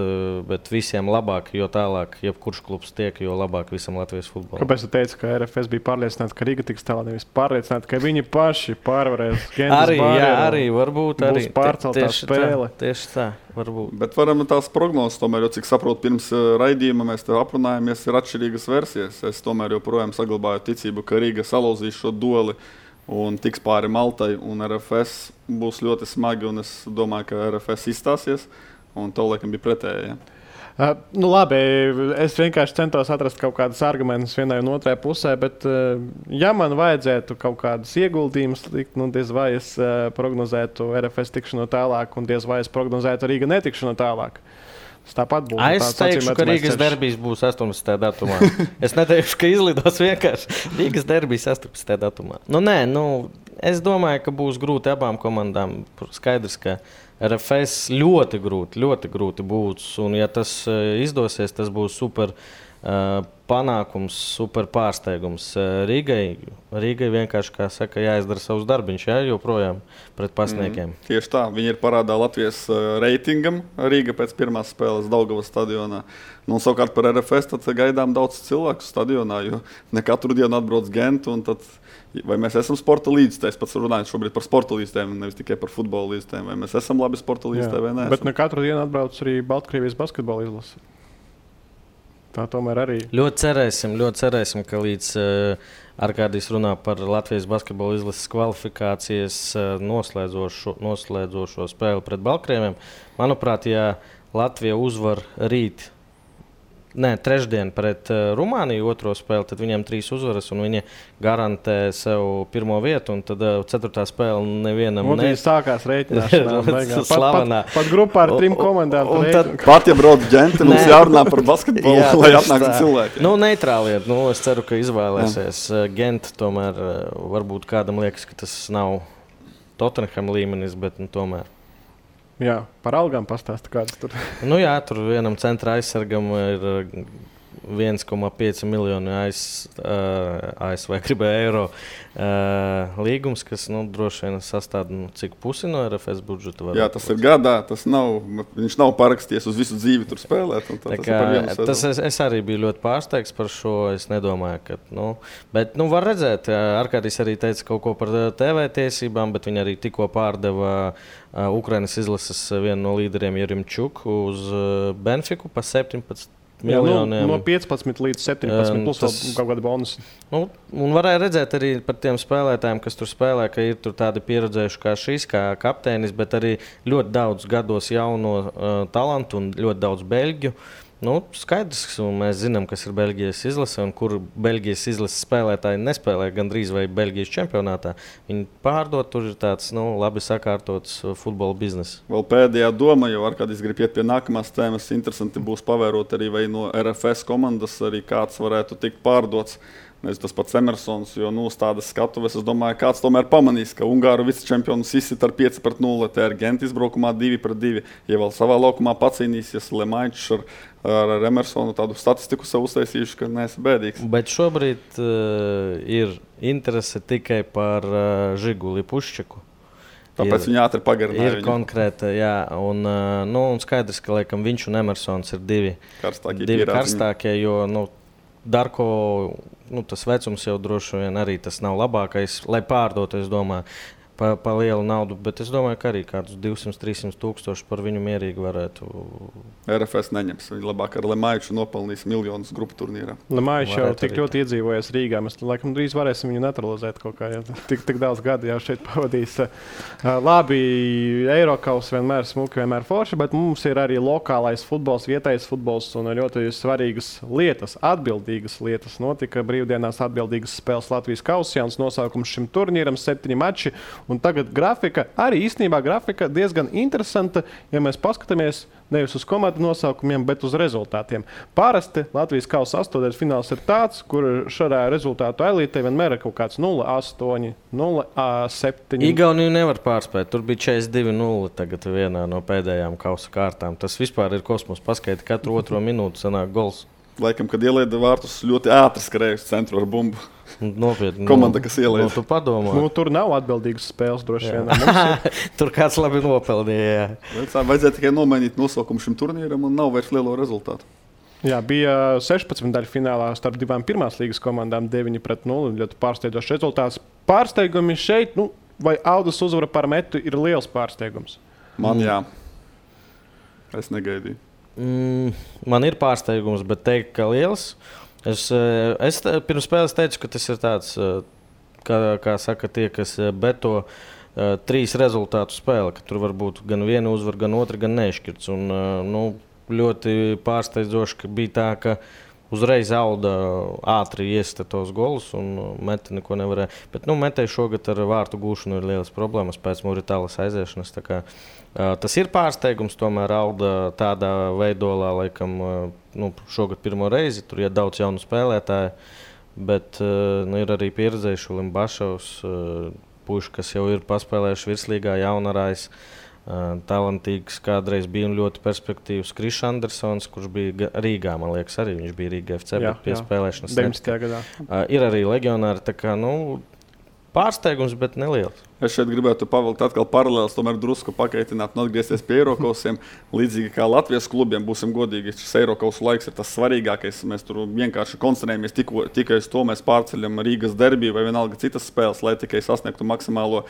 bet visiem labāk, jo tālāk, jebkurš klubs tiek, jo labāk visam Latvijas futbolam. Kāpēc tu teici, ka RFS bija pārliecināti, ka Riga tiks tālāk, nevis pārliecināti, ka viņi paši pārvarēs Gentas barjeru? Arī varbūt arī. Būs pārceltā spēle. Tieši tā, varbūt. Bet varam tās prognozes, tomēr, jo cik saprotu, pirms raidījuma mēs te aprunājamies, ir atšķirīgas versijas. Es tomēr joprojām saglabāju ticību, ka Riga salauzīs šo dueli un tiks pāri Maltai, un RFS būs ļoti smagi, un es domāju, ka RFS izstāsies, un to laikam bija pretēji. Ja? Labi, es vienkārši centos atrast kaut kādus argumentus vienai un otrai pusē, bet, ja man vajadzētu kaut kādus ieguldījumus likt, diez vai es prognozētu RFS tikšanu tālāk, un diez vai es prognozētu Rīga netikšanu tālāk. Tāpat būs. Es teikšu, ka Rīgas derbijs būs 18. datumā. Es neteikšu, ka izlidos vienkārši. Rīgas derbijs 18. datumā. Es domāju, ka būs grūti abām komandām. Skaidrs, ka RFS ļoti grūti būs. Un, ja tas izdosies, tas būs super panākums, super pārsteigums. Rīgai vienkārši, kā saka, jāizdara savus darbiņus, joprojām pret pasniekiem. Tieši tā. Viņi ir parādā Latvijas reitingam. Rīga pēc pirmās spēles Daugavas stadionā. Savukārt par RFS tad gaidām daudz cilvēku stadionā, jo ne katru dienu atbrauc Gentu. Vai mēs esam sporta līdzstājs? Es pats runāju šobrīd par sporta līdzstājiem, nevis tikai par futbola līdzstājiem. Vai mēs esam labi sporta līdzstājai vai nē? Bet ne katru dienu atbrauc arī Baltkrievijas basketbola izlase. Tā tomēr arī. Ļoti cerēsim, ka līdz Arkādijs runā par Latvijas basketbola izlases kvalifikācijas noslēdzošo spēli pret Baltkrieviem. Manuprāt, ja Latvija uzvar trešdien pret Rumāniju otro spēli, tad viņiem 3 uzvaras un viņi garantē sev pirmo vietu. Un tad 4. spēle nevienam Viņi sākās rēķināšanā. Pat grupā ar 3 komandām. Pat ja brauc Genti, mums jārunā par basketbolu, lai atnāktu cilvēki. Neitrāli. Es ceru, ka izvēlēsies Genti. Tomēr varbūt kādam liekas, ka tas nav Tottenham līmenis, bet tomēr. Jā, par algām pastāsta, kādas tur. Tur vienam centra aizsargam ir 1,5 miljonu ASV eiro līgums, kas droši vien sastāv cik pusi no RFS budžeta. Jā, tas ir gadā. Viņš nav parakstījies uz visu dzīvi tur spēlēt. Es arī biju ļoti pārsteigts par šo. Es nedomāju, ka. Bet var redzēt, Arkādijs arī teica kaut ko par TV tiesībām, bet viņi arī tikko pārdeva Ukrainas izlases vienu no līderiem Jerimčuku uz Benfiku pa 17 miljoniem. No 15 līdz 17 plus kaut kāda bonusa. Un varēja redzēt arī par tiem spēlētājiem, kas tur spēlē, ka ir tur tādi pieredzējuši kā šis, kā kapteinis, bet arī ļoti daudz gados jauno talantu un ļoti daudz beļģu. Skaidrs, un mēs zinām, kas ir Beļģijas izlase un kur Beļģijas izlases spēlētāji nespēlē gandrīz vai Beļģijas čempionātā. Viņi pārdod, tur ir tāds labi sakārtots futbola bizness. Vēl pēdējā doma, jo Arkādijs grib iet pie nākamās tēmas. Interesanti būs pavērot arī vai no RFS komandas arī kāds varētu tikt pārdots. Tas pats Emersons, jo uz tādas skatuves, es domāju, kāds tomēr pamanīs, ka Ungāru vicečempions izsit ar 5-0, te ar Gentu izbraukumā 2-2. Ja vēl savā laukumā pacīnīsies Lemaičs ar Emersonu, tādu statistiku sev uztaisījuši, ka neesi bēdīgs. Bet šobrīd ir interese tikai par Žiguli Puščaku. Tāpēc viņi ātri pagarināja. Ir konkrēta, jā. Un skaidrs, ka laikam viņš un Emersons ir divi karstākie, jo Darko, tas vecums jau droši vien arī tas nav labākais, lai pārdotu, es domāju, pa lielu naudu, bet es domāju, ka arī kādus 200-300 tūkstoši par viņu mierīgi varētu. RFS neņems. Viņi labāk ar Lemaiču nopelnīs miljonus grupu turnīrā. Lemaičs jau tik ļoti iedzīvojies Rīgā. Mēs laikam drīz varēsim viņu naturalizēt kaut kā. Tik daudz gadu jau šeit pavadīs. Labi, Eirokaus vienmēr smuki, vienmēr forši, bet mums ir arī lokālais futbols, vietējais futbols un ļoti svarīgas lietas, atbildīgas lietas. Notika brīvdienās atbildīgas spēles Latvijas kausā, jauns nosaukums šim turnīram, 7 mači. Un tagad grafika, arī īstenībā grafika diezgan interesanta, ja mēs paskatāmies nevis uz komandu nosaukumiem, bet uz rezultātiem. Parasti Latvijas kausa 8. fināls ir tāds, kur šādā rezultātu elītē vienmēr ir kaut kāds 0-8, 0-7. Igauniju nevar pārspēt. Tur bija 42-0 tagad vienā no pēdējām kausa kārtām. Tas vispār ir kosmos. Paskaiti, katru otro minūti sanāk gols. Laikam, kad ielaida vārtus, ļoti ātri skrējuši centru ar bumbu. Nopietni. Komanda, kas ielaida. Tu padomā. Tur nav atbildīgas spēles droši vien. Tur kāds labi nopeldīja. Vajadzēja tikai nomainīt nosaukumu šim turnīram un nav vairs lielo rezultātu. Jā, bija 16 daļu finālā starp divām pirmās līgas komandām 9-0. Ļoti pārsteidzošs rezultāts. Pārsteigumi šeit, vai Audus uzvara par Metu ir liels pārsteigums? Man jā. Es negaidīju. Man ir pārsteigums, bet teikt, ka liels. Es pirms spēles teicu, ka tas ir tāds, kā saka tie, kas beto 3 rezultātu spēle, ka tur var būt gan viena uzvara, gan otra, gan nešķirts. Un, ļoti pārsteidzoši, ka bija tā, ka uzreiz Auda ātri iesita tos golus un Mete neko nevarēja. Bet Metei šogad ar vārtu gūšanu ir lielas problēmas pēc Muritālas aiziešanas. Tas ir pārsteigums, tomēr Auda tādā veidolā, laikam, šogad pirmo reizi. Tur ir daudz jaunu spēlētāju, bet ir arī pieredzējuši Limbašovs, puiši, kas jau ir paspēlējuši virslīgā, Jaunarājs. Talantīgs, kādreiz bija ļoti perspektīvs Krišs Andersons, kurš bija Rīgā, man liekas, arī viņš bija Rīga FC, bet pie spēlēšanas 19. gadā. Ir arī leģionāri, tā kā, pārsteigums, bet neliels. Es šeit gribētu pavilkt atkal paralēlis, tomēr drusku pakaitināt un atgriezties pie Eirokausiem. Līdzīgi kā Latvijas klubiem, būsim godīgi, šis Eirokausu laiks ir tas svarīgākais. Mēs tur vienkārši koncentrējamies tikai uz to, mēs pārceļam Rīgas derbiju vai vienalga citas spēles, lai tikai sasniegtu maksimālo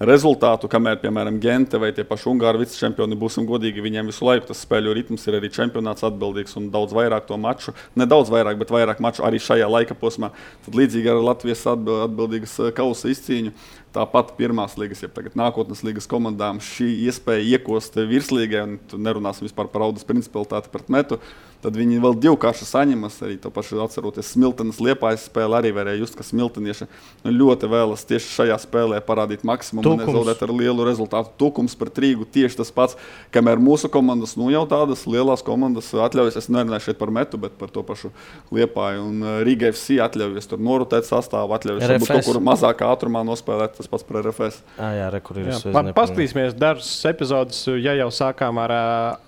rezultātu, kamēr, piemēram, Gente vai tie paši Ungāri vicečempioni, būsim godīgi, viņiem visu laiku tas spēļu ritms ir arī čempionāts atbildīgs un daudz vairāk to maču, nedaudz vairāk, bet vairāk maču arī šajā laika posmā. Tad līdzīgi ar Latvijas atbildīgas kausa izcīņu. Tāpat pirmās līgas, ja tagad nākotnes līgas komandām šī iespēja iekost virslīgai, un nerunāsim vispār par Audas principalitāti pret Metu, tad viņi vēl divkārši saņemas. Arī to pašu atceroties Smiltenes Liepājas spēli, arī varēja just, ka smiltenieši ļoti vēlas tieši šajā spēlē parādīt maksimumu un nezaudēt ar lielu rezultātu. Tukums pret Rīgu tieši tas pats, kamēr mūsu komandas, jau tādas lielās komandas atļaujas, es nerunāju šeit par Metu, bet par to pašu Liepāju un Rīga FC atļaujas tur norotēt sastāvu, atļaujas varbūt kaut kur mazākā ātrumā nospēlēt, tas pats par RFS. Jā, kur ir paskatīsimies dažas epizodes, ja jau sākām ar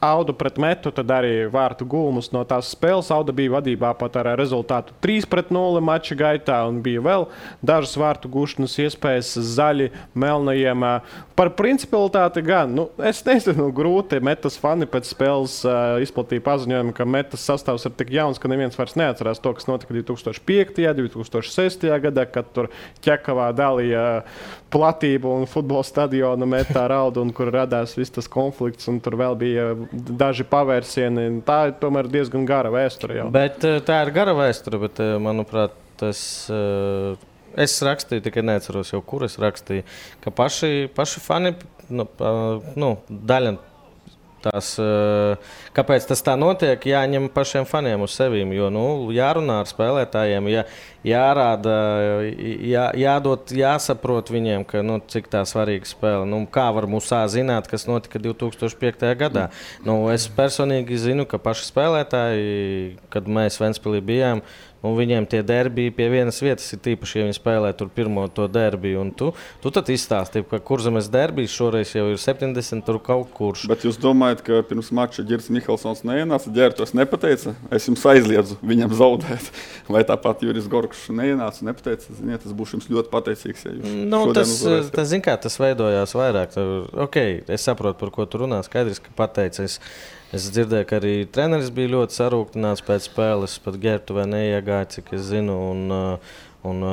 Audu pret Metu, tad arī vārtu gūmu no tās spēles. Auda bija vadībā pat ar rezultātu 3-0 mača gaitā un bija vēl dažas vārtu gūšanas iespējas zaļi melnajiem. Par principalitāti gan, es nezinu, grūti. Metas fani pēc spēles izplatīja paziņojumu, ka Metas sastāvs ir tik jauns, ka neviens vairs neatcerās to, kas notika 2005. 2006. gadā, kad tur Ķekavā dalīja platību un futbola stadionu Metā ar Audu, un kur radās viss tas konflikts, un tur vēl bija daži pavērsieni. Tā ir tomēr diezgan gara vēsture jau. Bet tā ir gara vēsture, bet, manuprāt, es rakstīju, tikai neatceros jau, kur es rakstīju, ka paši fani, daļa tās, kāpēc tas tā notiek, jāņem pašiem faniem uz sevīm, jo, jārunā ar spēlētājiem, jārāda, jāsaprot viņiem, ka, cik tā svarīga spēle. Kā var Musā zināt, kas notika 2005. gadā? Es personīgi zinu, ka paši spēlētāji, kad mēs Ventspilī bijām, viņiem tie derbiji pie vienas vietas ir tīpaši, ja viņi spēlē tur pirmo to derbiju. Un tu tad izstāstīji, ka Kurzemes derbijs šoreiz jau ir 70 tur kaut kurš. Bet jūs domājat, ka pirms mača Ģirds Mihelsons neienāca, Ģērtos nepateica, es jums aizliedzu viņam zaudēt. Vai tāpat Juris Gorkšs neienāca, nepateica, ziniet, es būšu jums ļoti pateicīgs, ja jūs tas veidojās vairāk. Es saprotu, par ko tu runā, skaidrs, ka pateica. Es dzirdēju, ka arī treneris bija ļoti sarūktināts pēc spēles, pat Ģērtuvē neiegāja, cik es zinu, un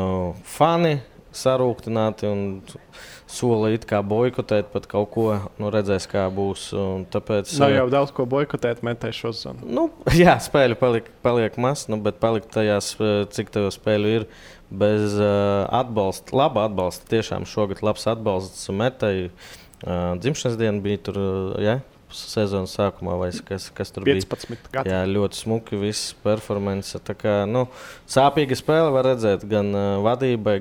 fani sarūktināti un sola it kā boikotēt pat kaut ko, redzēs, kā būs. Tāpēc, nav jau daudz ko boikotēt Metē šo zonu. Jā, spēļu paliek maz, bet palikt tajās, cik tev spēļu ir, bez atbalsta, laba atbalsta. Tiešām šogad labs atbalsts Metei. Dzimšanas diena bija tur, sezonas sākumā, vai kas tur 15 bija. Gadu. Jā, ļoti smuki, viss performance. Tā kā, sāpīga spēle var redzēt gan vadībai,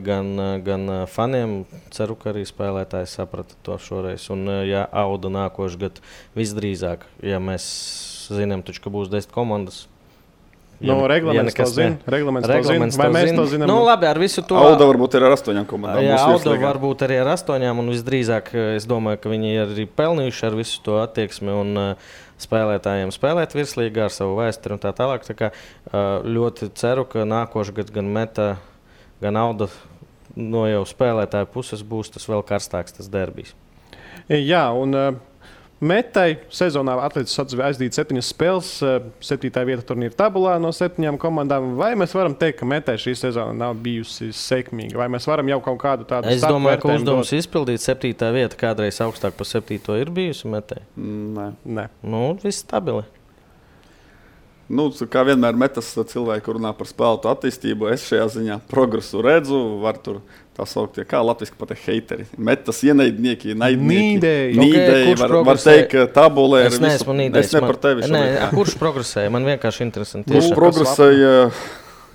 gan faniem. Ceru, ka arī spēlētāji saprata to šoreiz. Un, ja Auda nākošu gadu visdrīzāk, ja mēs zinām, taču, ka būs 10 komandas. Reglaments to zina. Vai mēs to zinām? Labi, ar visu to. Auda varbūt ir ar 8 komandām. Jā, Auda varbūt arī ar 8, un visdrīzāk es domāju, ka viņi ir arī pelnījuši ar visu to attieksmi un spēlētājiem spēlēt virslīgā ar savu vēsturi un tā tālāk. Tā kā ļoti ceru, ka nākošu gadu gan Meta, gan Auda no jau spēlētāju puses būs tas vēl karstāks tas derbijs. Jā, un Metai sezonā atlicis aizdīt 7 spēles, 7. vieta turnīra tabulā no 7 komandām. Vai mēs varam teikt, ka Metai šī sezona nav bijusi sekmīga? Vai mēs varam jau kaut kādu tādu Es domāju, ka uzdevums izpildīt 7. vieta kādreiz augstāk par 7. ir bijusi Metai. Nē. Nē. Viss stabili. Nu, kā vienmēr metas cilvēki runā par spēlētu attīstību, es šajā ziņā progresu redzu, var tur tā saukt, kā latviski pat heiteri. Metas ienaidnieki, naidnieki. Nīdēji, var teikt, ka tabulē ir visu. Es ne par tevi šobrīd. Kurš progresēja? Man vienkārši interesanti. Kurš progresēja?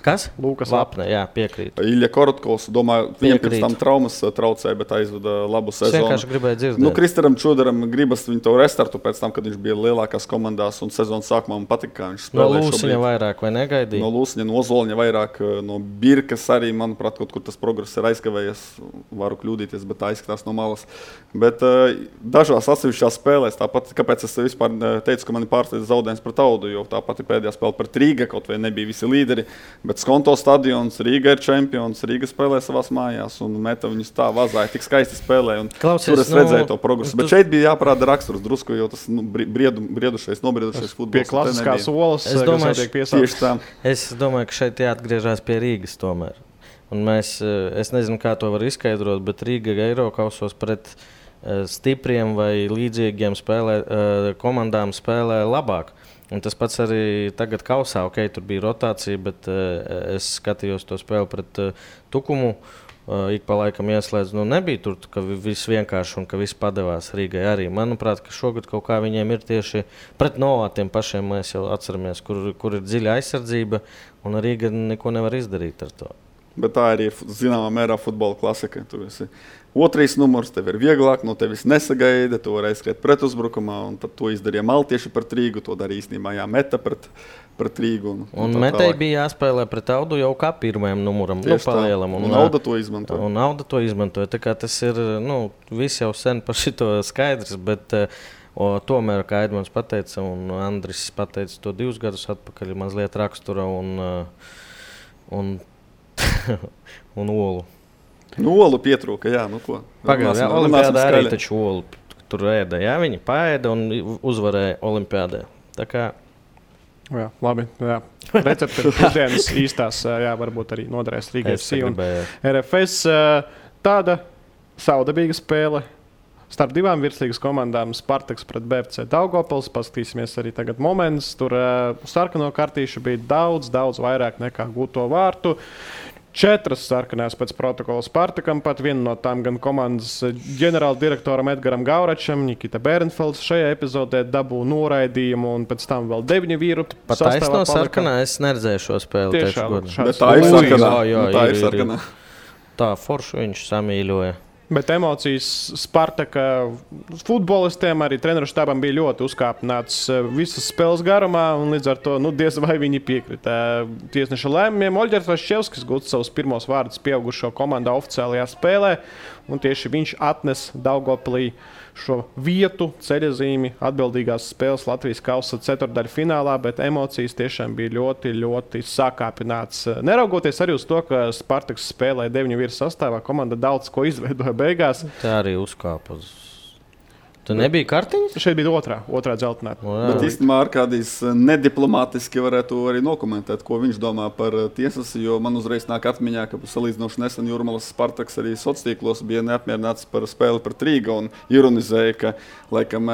Kas? Lūkas Vapne, jā, piekrīt. Ilja Korotkovs, domāju, viņam pirms tam traumas traucēja, bet aizvada labu sezonu. Es vienkārši gribēju dzirdēt. Kristaram Čudaram gribas viņu to restartu pēc tam, kad viņš bija lielākās komandās un sezonas sākumā man patika, kā viņš spēlē šobrīd. No Lūsiņa vairāk vai negaidīja? No Lūsiņa, no Ozoliņa vairāk, no Birkas arī, manuprāt, kaut kur tas progress ir aizkavējies. Varu kļūdīties, bet tā izskatās no malas. Bet dažās atsevišķās spēlēs, tāpat, kāpēc es vispār teicu, ka mani pārsteidz zaudējums pret Audu, jo tāpat pēdējā spēle pret Rīga, kaut vai nebija visi līderi. Bet Skonto stadions, Rīga ir čempions, Rīga spēlē savās mājās un meta viņus tā vazāja, tik skaisti spēlē. Klausies, tur es redzēju to progresu. Bet šeit bija jāparāda raksturs drusku, jo tas nobriedušais futbols. Pie klasiskās olas, kas tiek piesaukt. Es domāju, ka šeit jāatgriežās pie Rīgas tomēr. Un es nezinu, kā to var izskaidrot, bet Rīga Eirokausos pret stipriem vai līdzīgiem komandām spēlē labāk. Un tas pats arī tagad kausā, tur bija rotācija, bet es skatījos to spēli pret Tukumu. Ik pa laikam ieslēdz, nebija tur, ka viss vienkārši un ka viss padevās Rīgai arī. Manuprāt, ka šogad kaut kā viņiem ir tieši pret Novātiem pašiem, mēs jau atceramies, kur ir dziļa aizsardzība, un Rīga neko nevar izdarīt ar to. Bet tā arī ir zināmā mērā futbola klasika. Tu esi otrais numurs, tev ir vieglāk, no tevis nesagaida, tu vari aizskriet pretuzbrukumā, un tad to izdarīja maltieši pret Rīgu, to darīja īstenībā Meta pret Rīgu. Un Metai bija jāspēlē pret Audu jau kā pirmajam numuram, palielam. Un Auda to izmantoja. Un Auda to izmantoja, tā kā tas ir, viss jau sen par šito skaidrs, bet tomēr, kā Edmunds pateica, un Andris pateica to 2 gadus atpakaļ, mazliet rakstura un olu. Olu pietrūka, jā, ko. Pagājušajā olimpiādā arī taču olu tur ēda, jā, viņi paēda un uzvarēja olimpiādē. Tā kā... Jā, labi, jā. Recepti ir pusdienas īstās, jā, varbūt arī noderēs Rīgai FC un RFS. Tāda saudabīga spēle starp 2 virslīgas komandām, Spartaks pret BFC Daugavpils. Paskatīsimies arī tagad moments. Tur sarkano kartīšu bija daudz vairāk nekā gūto vārtu. 4 sarkanās pēc protokola Spartakam, pat viena no tām gan komandas ģenerāla direktoram Edgaram Gauračam, Nikita Bērenfelds šajā epizodē dabū noraidījumu, un pēc tam vēl 9 vīru. Pat taisno sarkanā es neredzēju šo spēli. Bet tā ir sarkanā. Tā ir sarkanā. Tā foršu viņš samīļoja. Bet emocijas Spartaka futbolistiem, arī treneru štābam bija ļoti uzkāpināts visas spēles garumā, un līdz ar to diez vai viņi piekrita tiesneša lēmumiem. Oļģers Vaščevskis gūst savus pirmos vārdus pieaugušo komandā oficiālajā spēlē, un tieši viņš atnes Daugavpilī šo vietu, ceļazīmi atbildīgās spēles Latvijas kausa ceturtdaļu finālā, bet emocijas tiešām bija ļoti sakāpināts. Neraugoties arī uz to, ka Spartaks spēlēja 9 vīru sastāvā, komanda daudz ko izveidoja beigās. Tā arī uzkāpa. Tu nebija kartiņas? Šeit bija otrā dzeltenā. Bet īstenībā Arkādijs nediplomātiski varētu arī nokomentēt, ko viņš domā par tiesas, jo man uzreiz nāk atmiņā, ka salīdzinoši nesen Jūrmalas Spartaks arī sociālos bija neapmierināts par spēli pret Rīga un ironizēja, ka laikam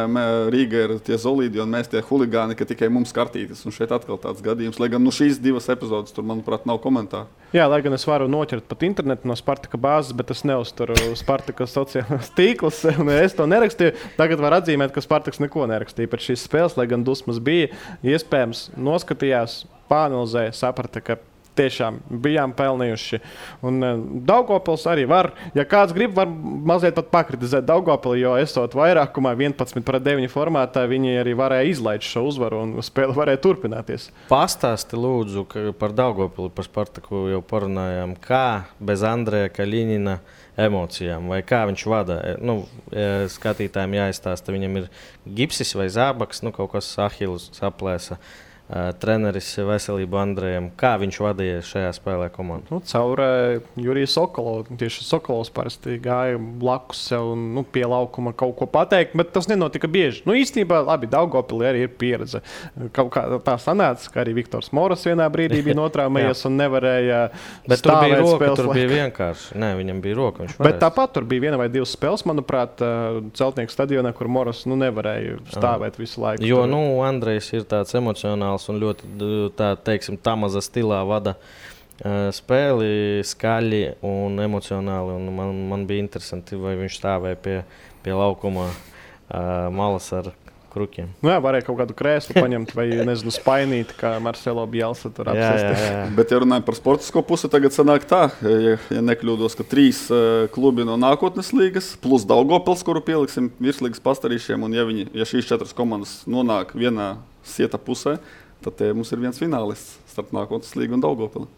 Rīga ir tie zolīdi un mēs tie huligāni, ka tikai mums kartītes. Un šeit atkal tāds gadījums, lai gan šīs 2 epizodes tur, manuprāt, nav komentāru. Jā, lai gan es varu noķert pat internetu no Spartaka bāzes, bet es neuzturu Spartaka sociālās tīklus, un es to nerakstīju. Tagad var atzīmēt, ka Spartaks neko nerakstīja par šīs spēles, lai gan dusmas bija. Iespējams, noskatījās, pāanalizēja, saprata, ka tiešām bijām pelnījuši. Un Daugavpils arī var, ja kāds grib, var mazliet pat pakritizēt Daugavpili, jo esot vairākumā 11-9 formātā, viņi arī varēja izlaist šo uzvaru un spēle varēja turpināties. Pastāsti lūdzu par Daugavpili, par Spartaku jau parunājām, kā bez Andreja Kaļinina emocijām, vai kā viņš vada. Skatītājiem jāizstāsta, viņam ir gipsis vai zābaks, kaut kas Ahilus saplēsa. Treneris veselību Andrejam. Kā viņš vadīja šajā spēlē komandu? Caur Juriju Sokolovu. Tieši Sokolovs parasti gāja blakus sev un pie laukuma kaut ko pateikt, bet tas nenotika bieži. Īstenībā, labi, Daugavpilī arī ir pieredze. Kaut kā tā sanāca, ka arī Viktors Moras vienā brīdī bija notraumējies un nevarēja bet tur bija roka, spēles. Tur bija vienkārši. Nē, viņam bija roka. Bet tāpat tur bija 1 vai 2 spēles, manuprāt, Celtnieku stadionā, kur Moras nevarēja stāvēt visu laiku. Jo, Andrejs ir tāds emocionāls profesionāls un ļoti, tā teiksim, tamaza stilā vada spēli, skaļi un emocionāli. Un man bija interesanti, vai viņš stāvēja pie laukuma malas ar krukiem. Nu jā, varēja kaut kādu krēslu paņemt vai, nezinu, spainīt, kā Marcelo Bielsa tur apsēsties. Jā. Bet, ja runājam par sportisko pusi, tagad sanāk tā, ja nekļūdos, ka 3 klubi no nākotnes līgas, plus Daugavpils, kuru pieliksim virslīgas pastarīšiem, un ja šīs 4 komandas nonāk vienā sieta pusē, tad mums ir viens finālists starp nākotnes līgu un Daugavpili.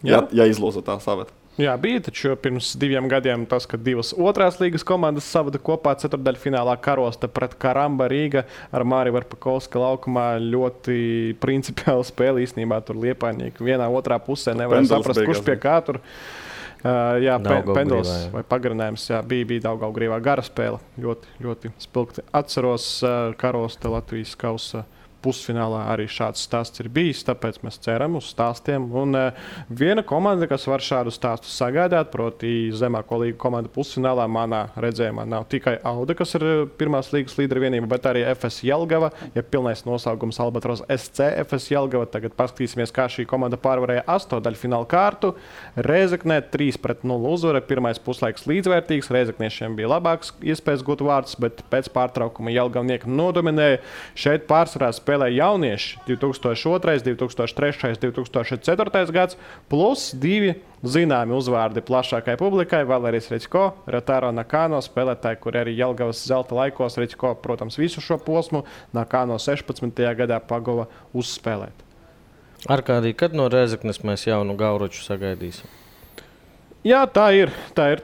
Ja izloza tā saveta. Jā, bija taču pirms 2 gadiem tas, ka 2 otrās līgas komandas savada kopā ceturtdaļfinālā Karosta pret Karamba Rīga ar Māri Varpakovska laukumā. Ļoti principiāli spēle īstenībā tur Liepainieki. Vienā otrā pusē nevarēja saprast, kurš pie kā tur. Jā, penduls vai pagarinājums. Jā, bija Daugavgrīvā gara spēle. Ļoti, ļoti spilgti. Atceros Karosta Latvijas kausa pusfinālā arī šāds stāsts ir bijis, tāpēc mēs ceram uz stāstiem. Un viena komanda, kas var šādu stāstu sagādāt, proti zemāko līgu komanda pusfinālā, manā redzējumā nav tikai Auda, kas ir pirmās līgas līdera vienība, bet arī FS Jelgava, ja pilnais nosaukums Albatros SC FS Jelgava. Tagad paskatīsimies, kā šī komanda pārvarēja 8-daļfināla kārtu. Rēzeknē 3-0 uzvara, pirmais puslaiks līdzvērtīgs, Rēzekniešiem bija labāks iespējas gūt vārds, bet pēc pārtraukuma Jelgavnieki nodominēja. Šeit pārsvarā spēlēja jaunieši 2002, 2003, 2004 gads, plus 2 zināmi uzvārdi plašākai publikai. Valērijas Reķko, Rataro Nakano, spēlētāji, kuri arī Jelgavas zelta laikos, Reķko, protams, visu šo posmu, Nakano 16. gadā pagova uzspēlēt. Arkādī, kad no Rēzeknes mēs jaunu Gauruču sagaidīsim? Jā, tā ir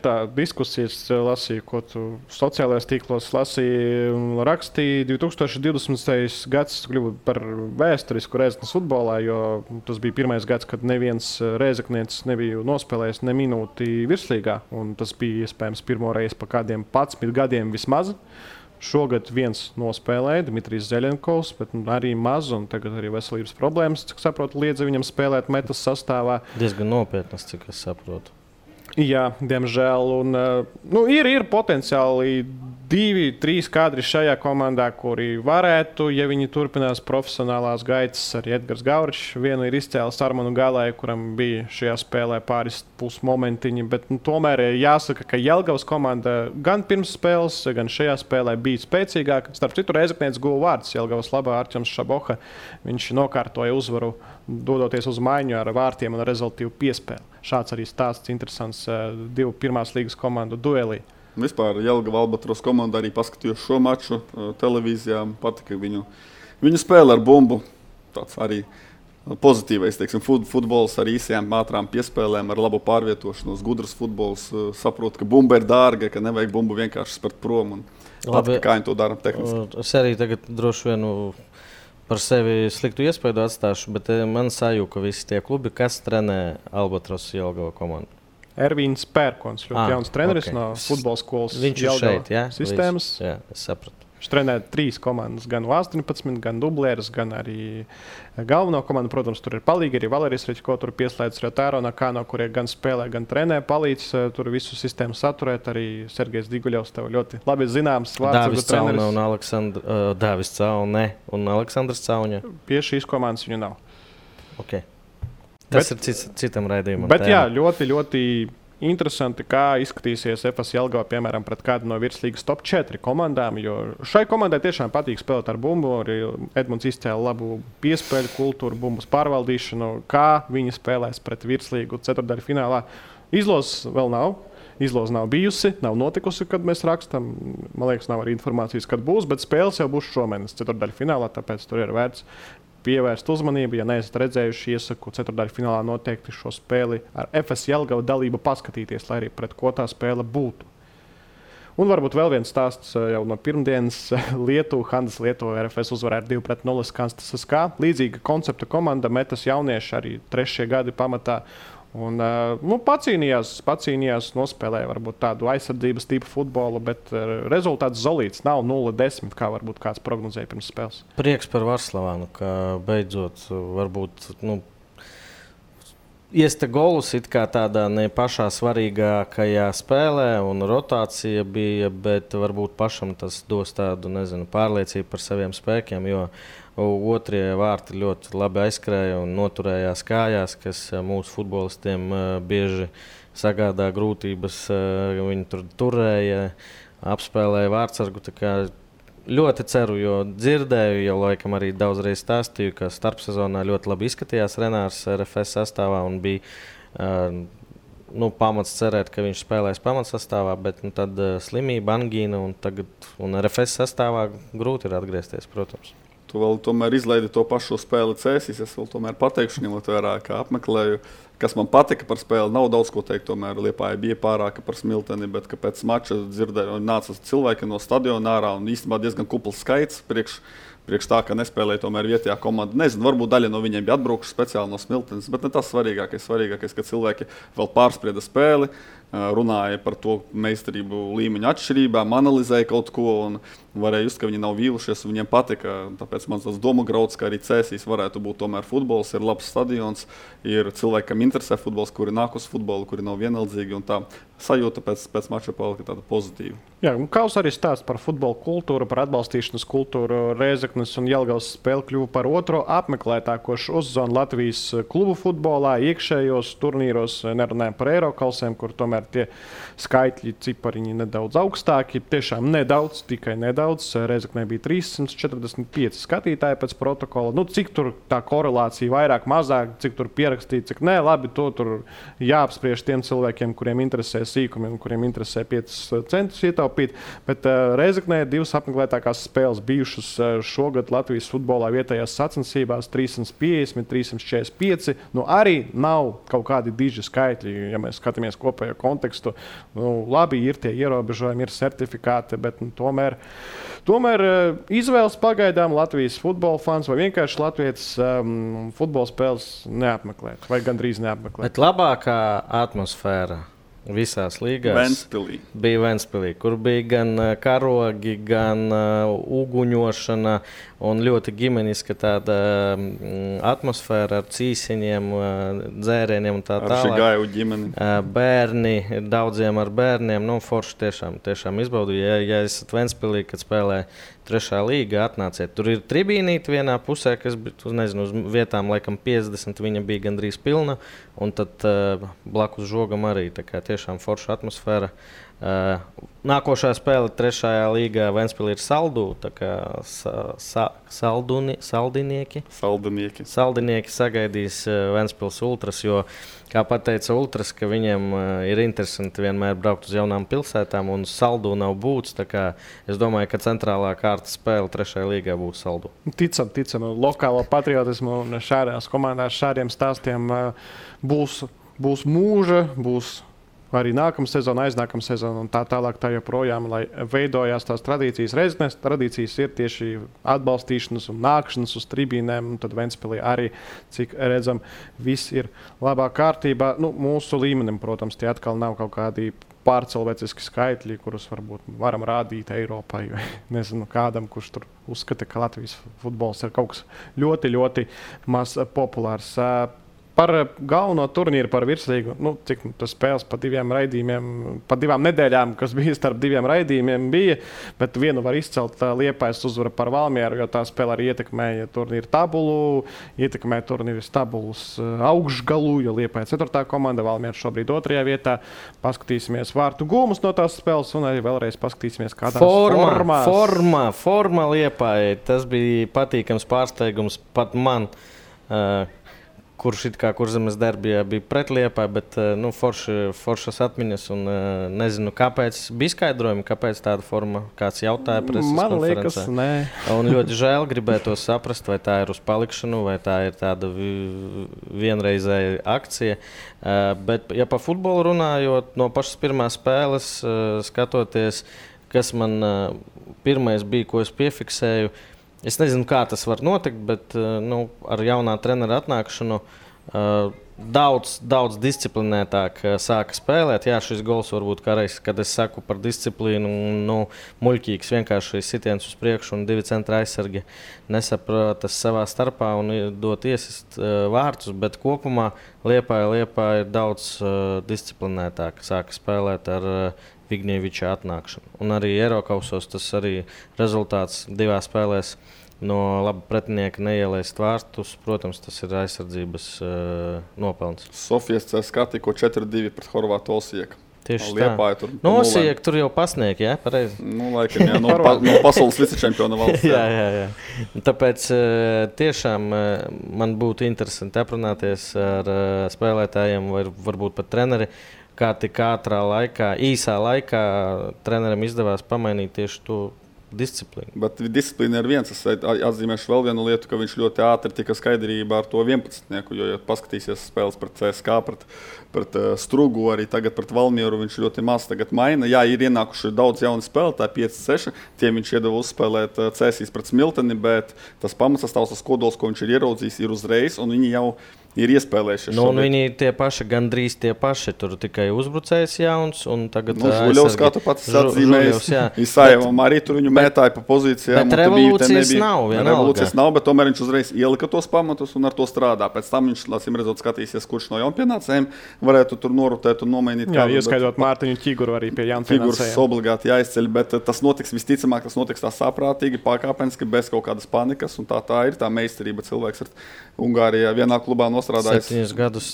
tā diskusijas, lasīju, ko tu sociālajos tīklos lasīji, rakstīja 2020. gads kļuva par vēsturisku Rēzeknes futbolā, jo tas bija pirmais gads, kad neviens rēzeknietis nebija nospēlējis ne minūti virslīgā, un tas bija iespējams pirmo reizi pa kādiem 11 gadiem vismaz. Šogad viens nospēlēja, Dmitrijs Zeļenkovs, bet arī maz, un tagad arī veselības problēmas, cik saprotu, liedza viņam spēlēt metas sastāvā. Diezgan nopietnas, cik es saprotu. Jā, diemžēl. Un, ir potenciāli 2-3 kadri šajā komandā, kuri varētu, ja viņi turpinās profesionālās gaitas. Arī Edgars Gauričs vienu ir izcēlis Armanu Galēju, kuram bija šajā spēlē pāris pusmomentiņi. Bet tomēr jāsaka, ka Jelgavas komanda gan pirms spēles, gan šajā spēlē bija spēcīgāka. Starp citu, Rēzeknietis guva vārds Jelgavas labā Arķems Šaboha. Viņš nokārtoja uzvaru, dodoties uz maiņu ar vārtiem un rezultīvu piespēli. Šāds arī stāsts interesants 2 pirmās līgas komandu duelī. Vispār Jelgava Albatros komanda arī paskatījos šo maču televīzijā. Patika viņu spēle ar bumbu. Tāds arī pozitīvais, teiksim, futbols ar īsajām, ātrām piespēlēm, ar labu pārvietošanos, gudrs futbols. Saprot, ka bumba ir dārga, ka nevajag bumbu vienkārši spērt prom. Labi, kā viņi to dara tehniski. Es arī tagad droši vien par sevi sliktu iespēju atstāšu, bet man sajūta, ka visi tie klubi, kas trenē Albatros Jelgava komandu. Ervīns Pērkons, ļoti jauns treneris no futbola skolas. Viņš ir šeit, jā? Sistēmas. Jā, es sapratu. Viņš trenē 3 komandas, gan U18, gan dublēras, gan arī galveno komandu. Protams, tur ir palīgi arī Valērijas Reķko, tur pieslēdz Rataro Nakano, kurie gan spēlē, gan trenē, palīdz tur visu sistēmu saturēt. Arī Sergejs Diguļevs tev ļoti labi zināms vārds. Dāvis Caune un Aleksandrs Cauņa. Pie šīs komandas viņu nav. Okay. Tas ir citam raidījumam. Bet jā, ļoti, ļoti interesanti, kā izskatīsies FS Jelgava, piemēram, pret kādu no virslīgas top 4 komandām, jo šai komandai tiešām patīk spēlēt ar bumbu. Arī Edmunds izcēla labu piespēļu kultūru, bumbas pārvaldīšanu, kā viņi spēlēs pret virslīgu ceturtdaļfinālā. Izlozes vēl nav. Izloze nav bijusi, nav notikusi, kad mēs rakstām. Man liekas, nav arī informācijas, kad būs, bet spēles jau būs šomēnes ceturtdaļfinālā, tāpēc tur ir vērts pievērst uzmanību. Ja neesat redzējuši, iesaku ceturtdaļfinālā noteikti šo spēli ar FS Jelgava dalību paskatīties, lai arī pret ko tā spēle būtu. Un varbūt vēl viens stāsts jau no pirmdienas. Handas Lietuva RFS uzvarēja 2-0 Kanstas SK. Līdzīga koncepta komanda, metas jaunieši arī 3. gadi pamatā. Un, pacīnījās, nospēlēja varbūt tādu aizsardzības tipu futbolu, bet rezultāts zolīts nav 0-10, kā varbūt kāds prognozēja pirms spēles. Prieks par Varslavānu, ka beidzot varbūt iesta golus it kā tādā ne pašā svarīgākajā spēlē, un rotācija bija, bet varbūt pašam tas dos tādu, pārliecību par saviem spēkiem, jo otrie vārti ļoti labi aizskrēja un noturējās kājās, kas mūsu futbolistiem bieži sagādā grūtības. Viņi tur turēja, apspēlēja vārtsargu. Ļoti ceru, jo dzirdēju, jau laikam arī daudzreiz stāstīju, ka starpsezonā ļoti labi izskatījās Renārs RFS sastāvā un bija pamats cerēt, ka viņš spēlēs pamatsastāvā, bet tad slimība, angīna un RFS sastāvā grūti ir atgriezties, protams. Tu vēl tomēr izlaidi to pašu spēli Cēsīs. Es vēl tomēr pateikšu, ņemot vērā, kā apmeklēju. Kas man patika par spēli, nav daudz ko teikt. Tomēr Liepāja bija pārāka par Smilteni, bet pēc mača dzirdēju, nāca cilvēki no stadiona ārā un īstenībā diezgan kupls skaits priekš tā, ka nespēlēja tomēr vietējā komanda. Nezinu, varbūt daļa no viņiem bija atbraukuši speciāli no Smiltenes, bet ne tas svarīgākais. Svarīgākais, ka cilvēki vēl pārsprieda spēli, runāja par to meistarību līmeņa atšķirībām, analizēja kaut ko un varēja just, ka viņi nav vīlušies. Viņiem patika, tāpēc man tas doma grauds, ka arī Cēsīs varētu būt tomēr futbols, ir labs stadions, ir cilvēki, kam interesē futbols, kuri nāk uz futbolu, kuri nav vienaldzīgi un tā sajūta pēc mača palika tāda pozitīva. Jā, un Kaus arī stāsta par futbola kultūru, par atbalstīšanas kultūru. Rēzeknes un Jelgavas spēle kļuva par otro apmeklētāko sezonu Latvijas klubu futbolā, iekšējos turnīros, nerunājam par Eirokalsiem, kur tomēr tie skaitļi, cipariņi nedaudz augstāki, tiešām nedaudz, tikai nedaudz. Rēzeknē bija 345 skatītāji pēc protokola. Cik tur tā korelācija vairāk, mazāk, cik tur pierakstīt, cik nē, labi, to tur jāapspriež tiem cilvēkiem, kuriem interesē sīkumi un kuriem interesē 5 centus ietaupīt. Bet Rēzeknē ir 2 apmeklētākās spēles bijušas šogad Latvijas futbolā vietējās sacensībās 350, 345. Arī nav kaut kādi diži skaitļi, ja mēs skatāmies kopējo kontekstu. Labi, ir tie ierobežojumi, ir certifikāti, bet tomēr izvēles pagaidām Latvijas futbola fans vai vienkārši Latvijas futbola spēles neapmeklēt vai gandrīz neapmeklēt. Bet labākā atmosfēra visās līgās bija Ventspilī, kur bija gan karogi, gan uguņošana un ļoti ģimeniska tāda atmosfēra ar cīsiņiem, dzērieniem un tā tālāk. Ar Šigāju ģimeni. Bērni, daudziem ar bērniem, forši tiešām izbaudīja. Ja esat Ventspilī, kad spēlē 3. līga, atnāciet. Tur ir tribīnīte vienā pusē, kas bija, uz vietām laikam 50, viņa bija gandrīz pilna, un tad blakus žogam arī, tā kā tiešām forša atmosfēra. Nākošā spēle 3. līgā Ventspilī ir Saldu, tā kā Saldinieki sagaidīs Ventspils ultras, jo, kā pateica ultras, ka viņiem ir interesanti vienmēr braukt uz jaunām pilsētām, un Saldu nav būts, tā kā es domāju, ka centrālā kārtas spēle 3. līgā būs Saldu. Ticam, lokālo patriotismu un šādās komandās šādiem stāstiem būs mūža, būs arī nākamā sezona, aiznākamā sezona un tā tālāk, tā joprojām, lai veidojās tās tradīcijas. Reizes tradīcijas ir tieši atbalstīšanas un nākšanas uz tribīnēm, un tad Ventspilī arī, cik redzam, viss ir labā kārtībā. Mūsu līmenim, protams, tie atkal nav kaut kādi pārcilvēciski skaitļi, kurus varbūt varam rādīt Eiropai, vai nezinu kādam, kurš tur uzskata, ka Latvijas futbols ir kaut kas ļoti, ļoti maz populārs. Par galveno turnīru, par virslīgu, cik tas spēles pa 2 raidījumiem, pa 2 nedēļām, kas bija starp 2 raidījumiem, bija, bet vienu var izcelt Liepājas uzvara par Valmieru, jo tā spēle arī ietekmēja turnīru tabulu, ietekmēja turnīru tabulas augšgalu, jo Liepāja 4. komanda, Valmiera šobrīd 2. vietā. Paskatīsimies vārtu gūmus no tās spēles un arī vēlreiz paskatīsimies, kādās formās. Forma Liepāja, tas bija patīkams pārsteigums pat man. Kurš it kā Kurzemes derbijā bija pret Liepāju, bet foršas atmiņas un nezinu, kāpēc bija skaidrojumi, kāpēc tāda forma, kāds jautāja preses konferencē. Man liekas, nē. Un ļoti žēl gribētu saprast, vai tā ir uz palikšanu, vai tā ir tāda vienreizēja akcija. Bet, ja pa futbolu runājot, no pašas pirmās spēles skatoties, kas man pirmais bija, ko es piefiksēju, es nezinu, kā tas var notikt, bet ar jaunā trenera atnākšanu daudz disciplinētāk sāka spēlēt. Jā, šis gols varbūt kādreiz, kad es saku par disciplīnu, muļķīgs vienkārši sitiens uz priekšu un 2 centra aizsargi nesapratas savā starpā un dot iesist vārtus, bet kopumā Liepāja ir daudz disciplinētāk sāka spēlēt ar Vigņeviča atnākšanu. Un arī Eirokausos tas arī rezultāts 2 spēlēs. No laba pretinieka neielaist vārtus, protams, tas ir aizsardzības nopelns. Sofijas CSKA tikko 4-2 pret Horvātu Osijeku. Tieši Liepāja tur. No Osijeku tur jau pasniegt, jā, pareizi. Laikam, jā, no pasaules vicečempiona valsts. Jā. Tāpēc tiešām man būtu interesanti aprunāties ar spēlētājiem vai varbūt pat treneri, kā tik īsā laikā trenerim izdevās pamainīt tieši to disciplīnu. Bet disciplīna ir viens. Es atzīmēšu vēl vienu lietu, ka viņš ļoti ātri tika skaidrībā ar to 11-nieku, jo, ja paskatīsies spēles pret CSKA, pret Strugu, arī tagad pret Valmieru, viņš ļoti maz tagad maina. Jā, ir ienākuši daudz jaunu spēlētāju, 5-6, tiem viņš iedeva uzspēlēt Cēsīs pret Smilteni, bet tas pamatsastāvs, tas kodols, ko viņš ir ieraudzījis, ir uzreiz, un viņi jau ir iespēlējušies. Viņi tie paši, gandrīz tie paši, tur tikai uzbrucējs jauns, un tagad Žuļovs, kā tu pats atzīmējis, Isajevam arī tur viņu mētāja pa pozīcijām. Bet revolūcijas nav, bet tomēr viņš uzreiz ielika tos pamatus un ar to strādā. Pēc tam viņš, lācim redzot, skatīsies, kurš no jaunpienācējiem varētu tur norotēt un nomainīt. Jā, ieskaidot Mārtiņu Ķiguru arī pie jaunpienācējiem. Figurs obligāti jāizceļ, bet tas notiks visticamāk, tas notiks tā saprātīgi, pakāpeniski, bez kaut kādas panikas, un tā ir tā meistarība. Cilvēks ir Ungārijā vienā klubā strādājis 7 gadus,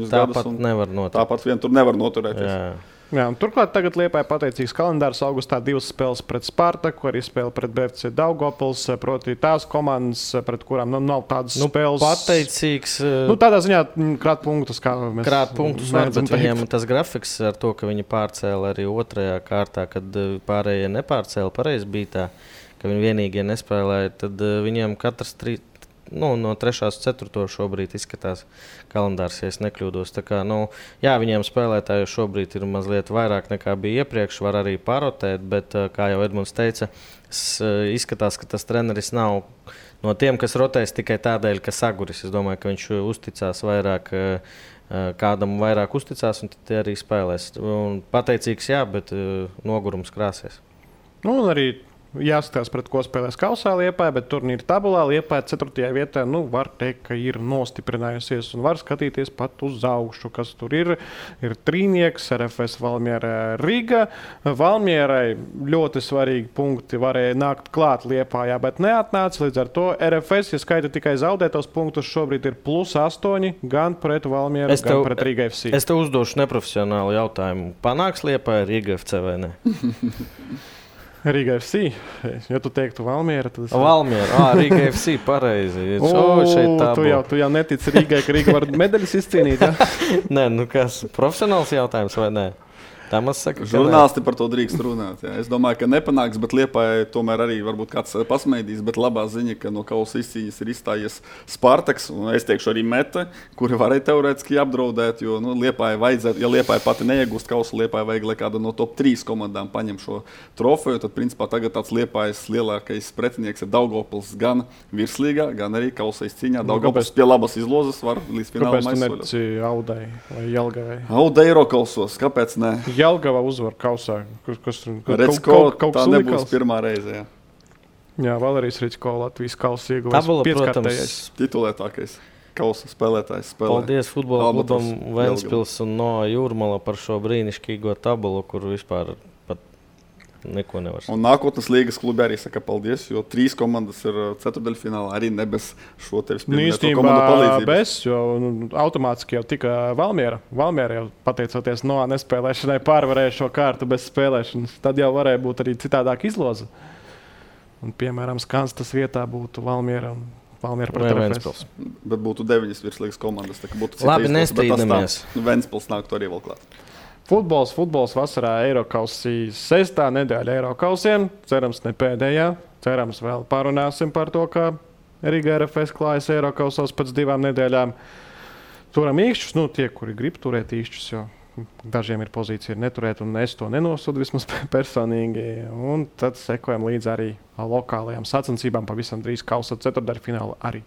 tāpat nevar noturēt. Tāpat vien tur nevar noturēties. Jā, un turklāt tagad Liepāja pateicīgs kalendārs. Augustā 2 spēles pret Spartaku, arī spēle pret BFC Daugavpils, proti tās komandas, pret kurām nav tādas spēles. Pateicīgs. Tādā ziņā krāt punktus, kā mēs var, bet viņiem tas grafiks ar to, ka viņi pārcēla arī 2. kārtā, kad pārējie nepārcēla, pareizi bija tā, ka viņi vienīgie nespēlēja, tad viņiem katrs 3. No 3. uz 4. šobrīd izskatās kalendārs, ja es nekļūdos. Tā kā, viņiem spēlētāju šobrīd ir mazliet vairāk nekā bija iepriekš, var arī parotēt, bet, kā jau Edmunds teica, izskatās, ka tas treneris nav no tiem, kas rotēs tikai tādēļ, ka saguris. Es domāju, ka viņš uzticās vairāk, kādam vairāk uzticās, un tad arī spēlēs. Un pateicīgs, jā, bet nogurums krāsies. Un arī jāskatās, pret ko spēlēs Kausā Liepāja, bet turnīra tabulā Liepāja 4. vietā, var teikt, ka ir nostiprinājusies un var skatīties pat uz augšu, kas tur ir. Ir trīnieks, RFS Valmiera Riga. Valmierai ļoti svarīgi punkti varēja nākt klāt Liepājā, bet neatnāca. Līdz ar to RFS, ja skaita tikai zaudētos punktus, šobrīd ir +8 gan pret Valmieru, gan pret Riga FC. Es tev uzdošu neprofesionālu jautājumu. Panāks Liepāja Riga FC vai ne? Riga FC. Ja tu teiktu Valmiera, tad es... Valmiera, Riga FC, pareizi. Tu jau netici Rigai, ka Riga var medaļas izcīnīt, ja? Nē, kas, profesionāls jautājums vai nē? Žurnālisti par to drīkst runāt. Jā. Es domāju, ka nepanāks, bet Liepāja tomēr arī varbūt kāds pasmaidīs. Bet labā ziņa, ka no kausa izcīņas ir izstājies Spartaks un es teikšu arī Meta, kuri varēja teorētiski apdraudēt. Jo Liepāja vajadzētu, ja Liepāja pati neiegūst kausu, Liepāja vajag, lai kāda no top 3 komandām paņem šo trofeju. Tad principā tagad tāds Liepājas lielākais pretinieks ir Daugavpils gan virslīgā, gan arī kausa izcīņā. Daugavpils pie labas izlozes var līdz finālam aizsoļot. Kāpēc tu netici Audai vai Jelgavai? Audai Eirokausos, kāpēc ne? Jelgava uzvar kausā. Kaut tā nebūs pirmā reize. Jā, Valērijas Ričko Latvijas kausa ieguvējs 5-kārtējais. Titulētākais kausa spēlētājs. Paldies futbola klubam Ventspils un no Jūrmala par šo brīnišķīgo tabulu, kur vispār pat neko nevar saka. Un nākotnes līgas klubi arī saka paldies, jo 3 komandas ir ceturtdaļfinālā arī ne bez šo tevis pieminēto komandu palīdzības. Bez, jo automātiski jau tika Valmiera. Valmiera jau pateicoties no nespēlēšanai pārvarēja šo kārtu bez spēlēšanas. Tad jau varēja būt arī citādāk izloze. Un, piemēram, Skanstas vietā būtu Valmiera un Valmiera pret Ventspils. Bet būtu 9 virslīgas komandas. Labi, nestrīdamies. Ventspils nāktu arī vēl klāt. Futbols vasarā Eirokausī 6. nedēļa Eirokausiem. Cerams, ne pēdējā. Cerams, vēl parunāsim par to, kā Riga RFS klājas Eirokausos pēc 2 nedēļām. Turam īkšķus, tie, kuri grib turēt īkšķus, jo dažiem ir pozīcija neturēt, un es to nenosodu vismaz personīgi. Un tad sekojam līdz arī lokālajām sacensībām pavisam drīz kausa ceturtdaļfināla arī.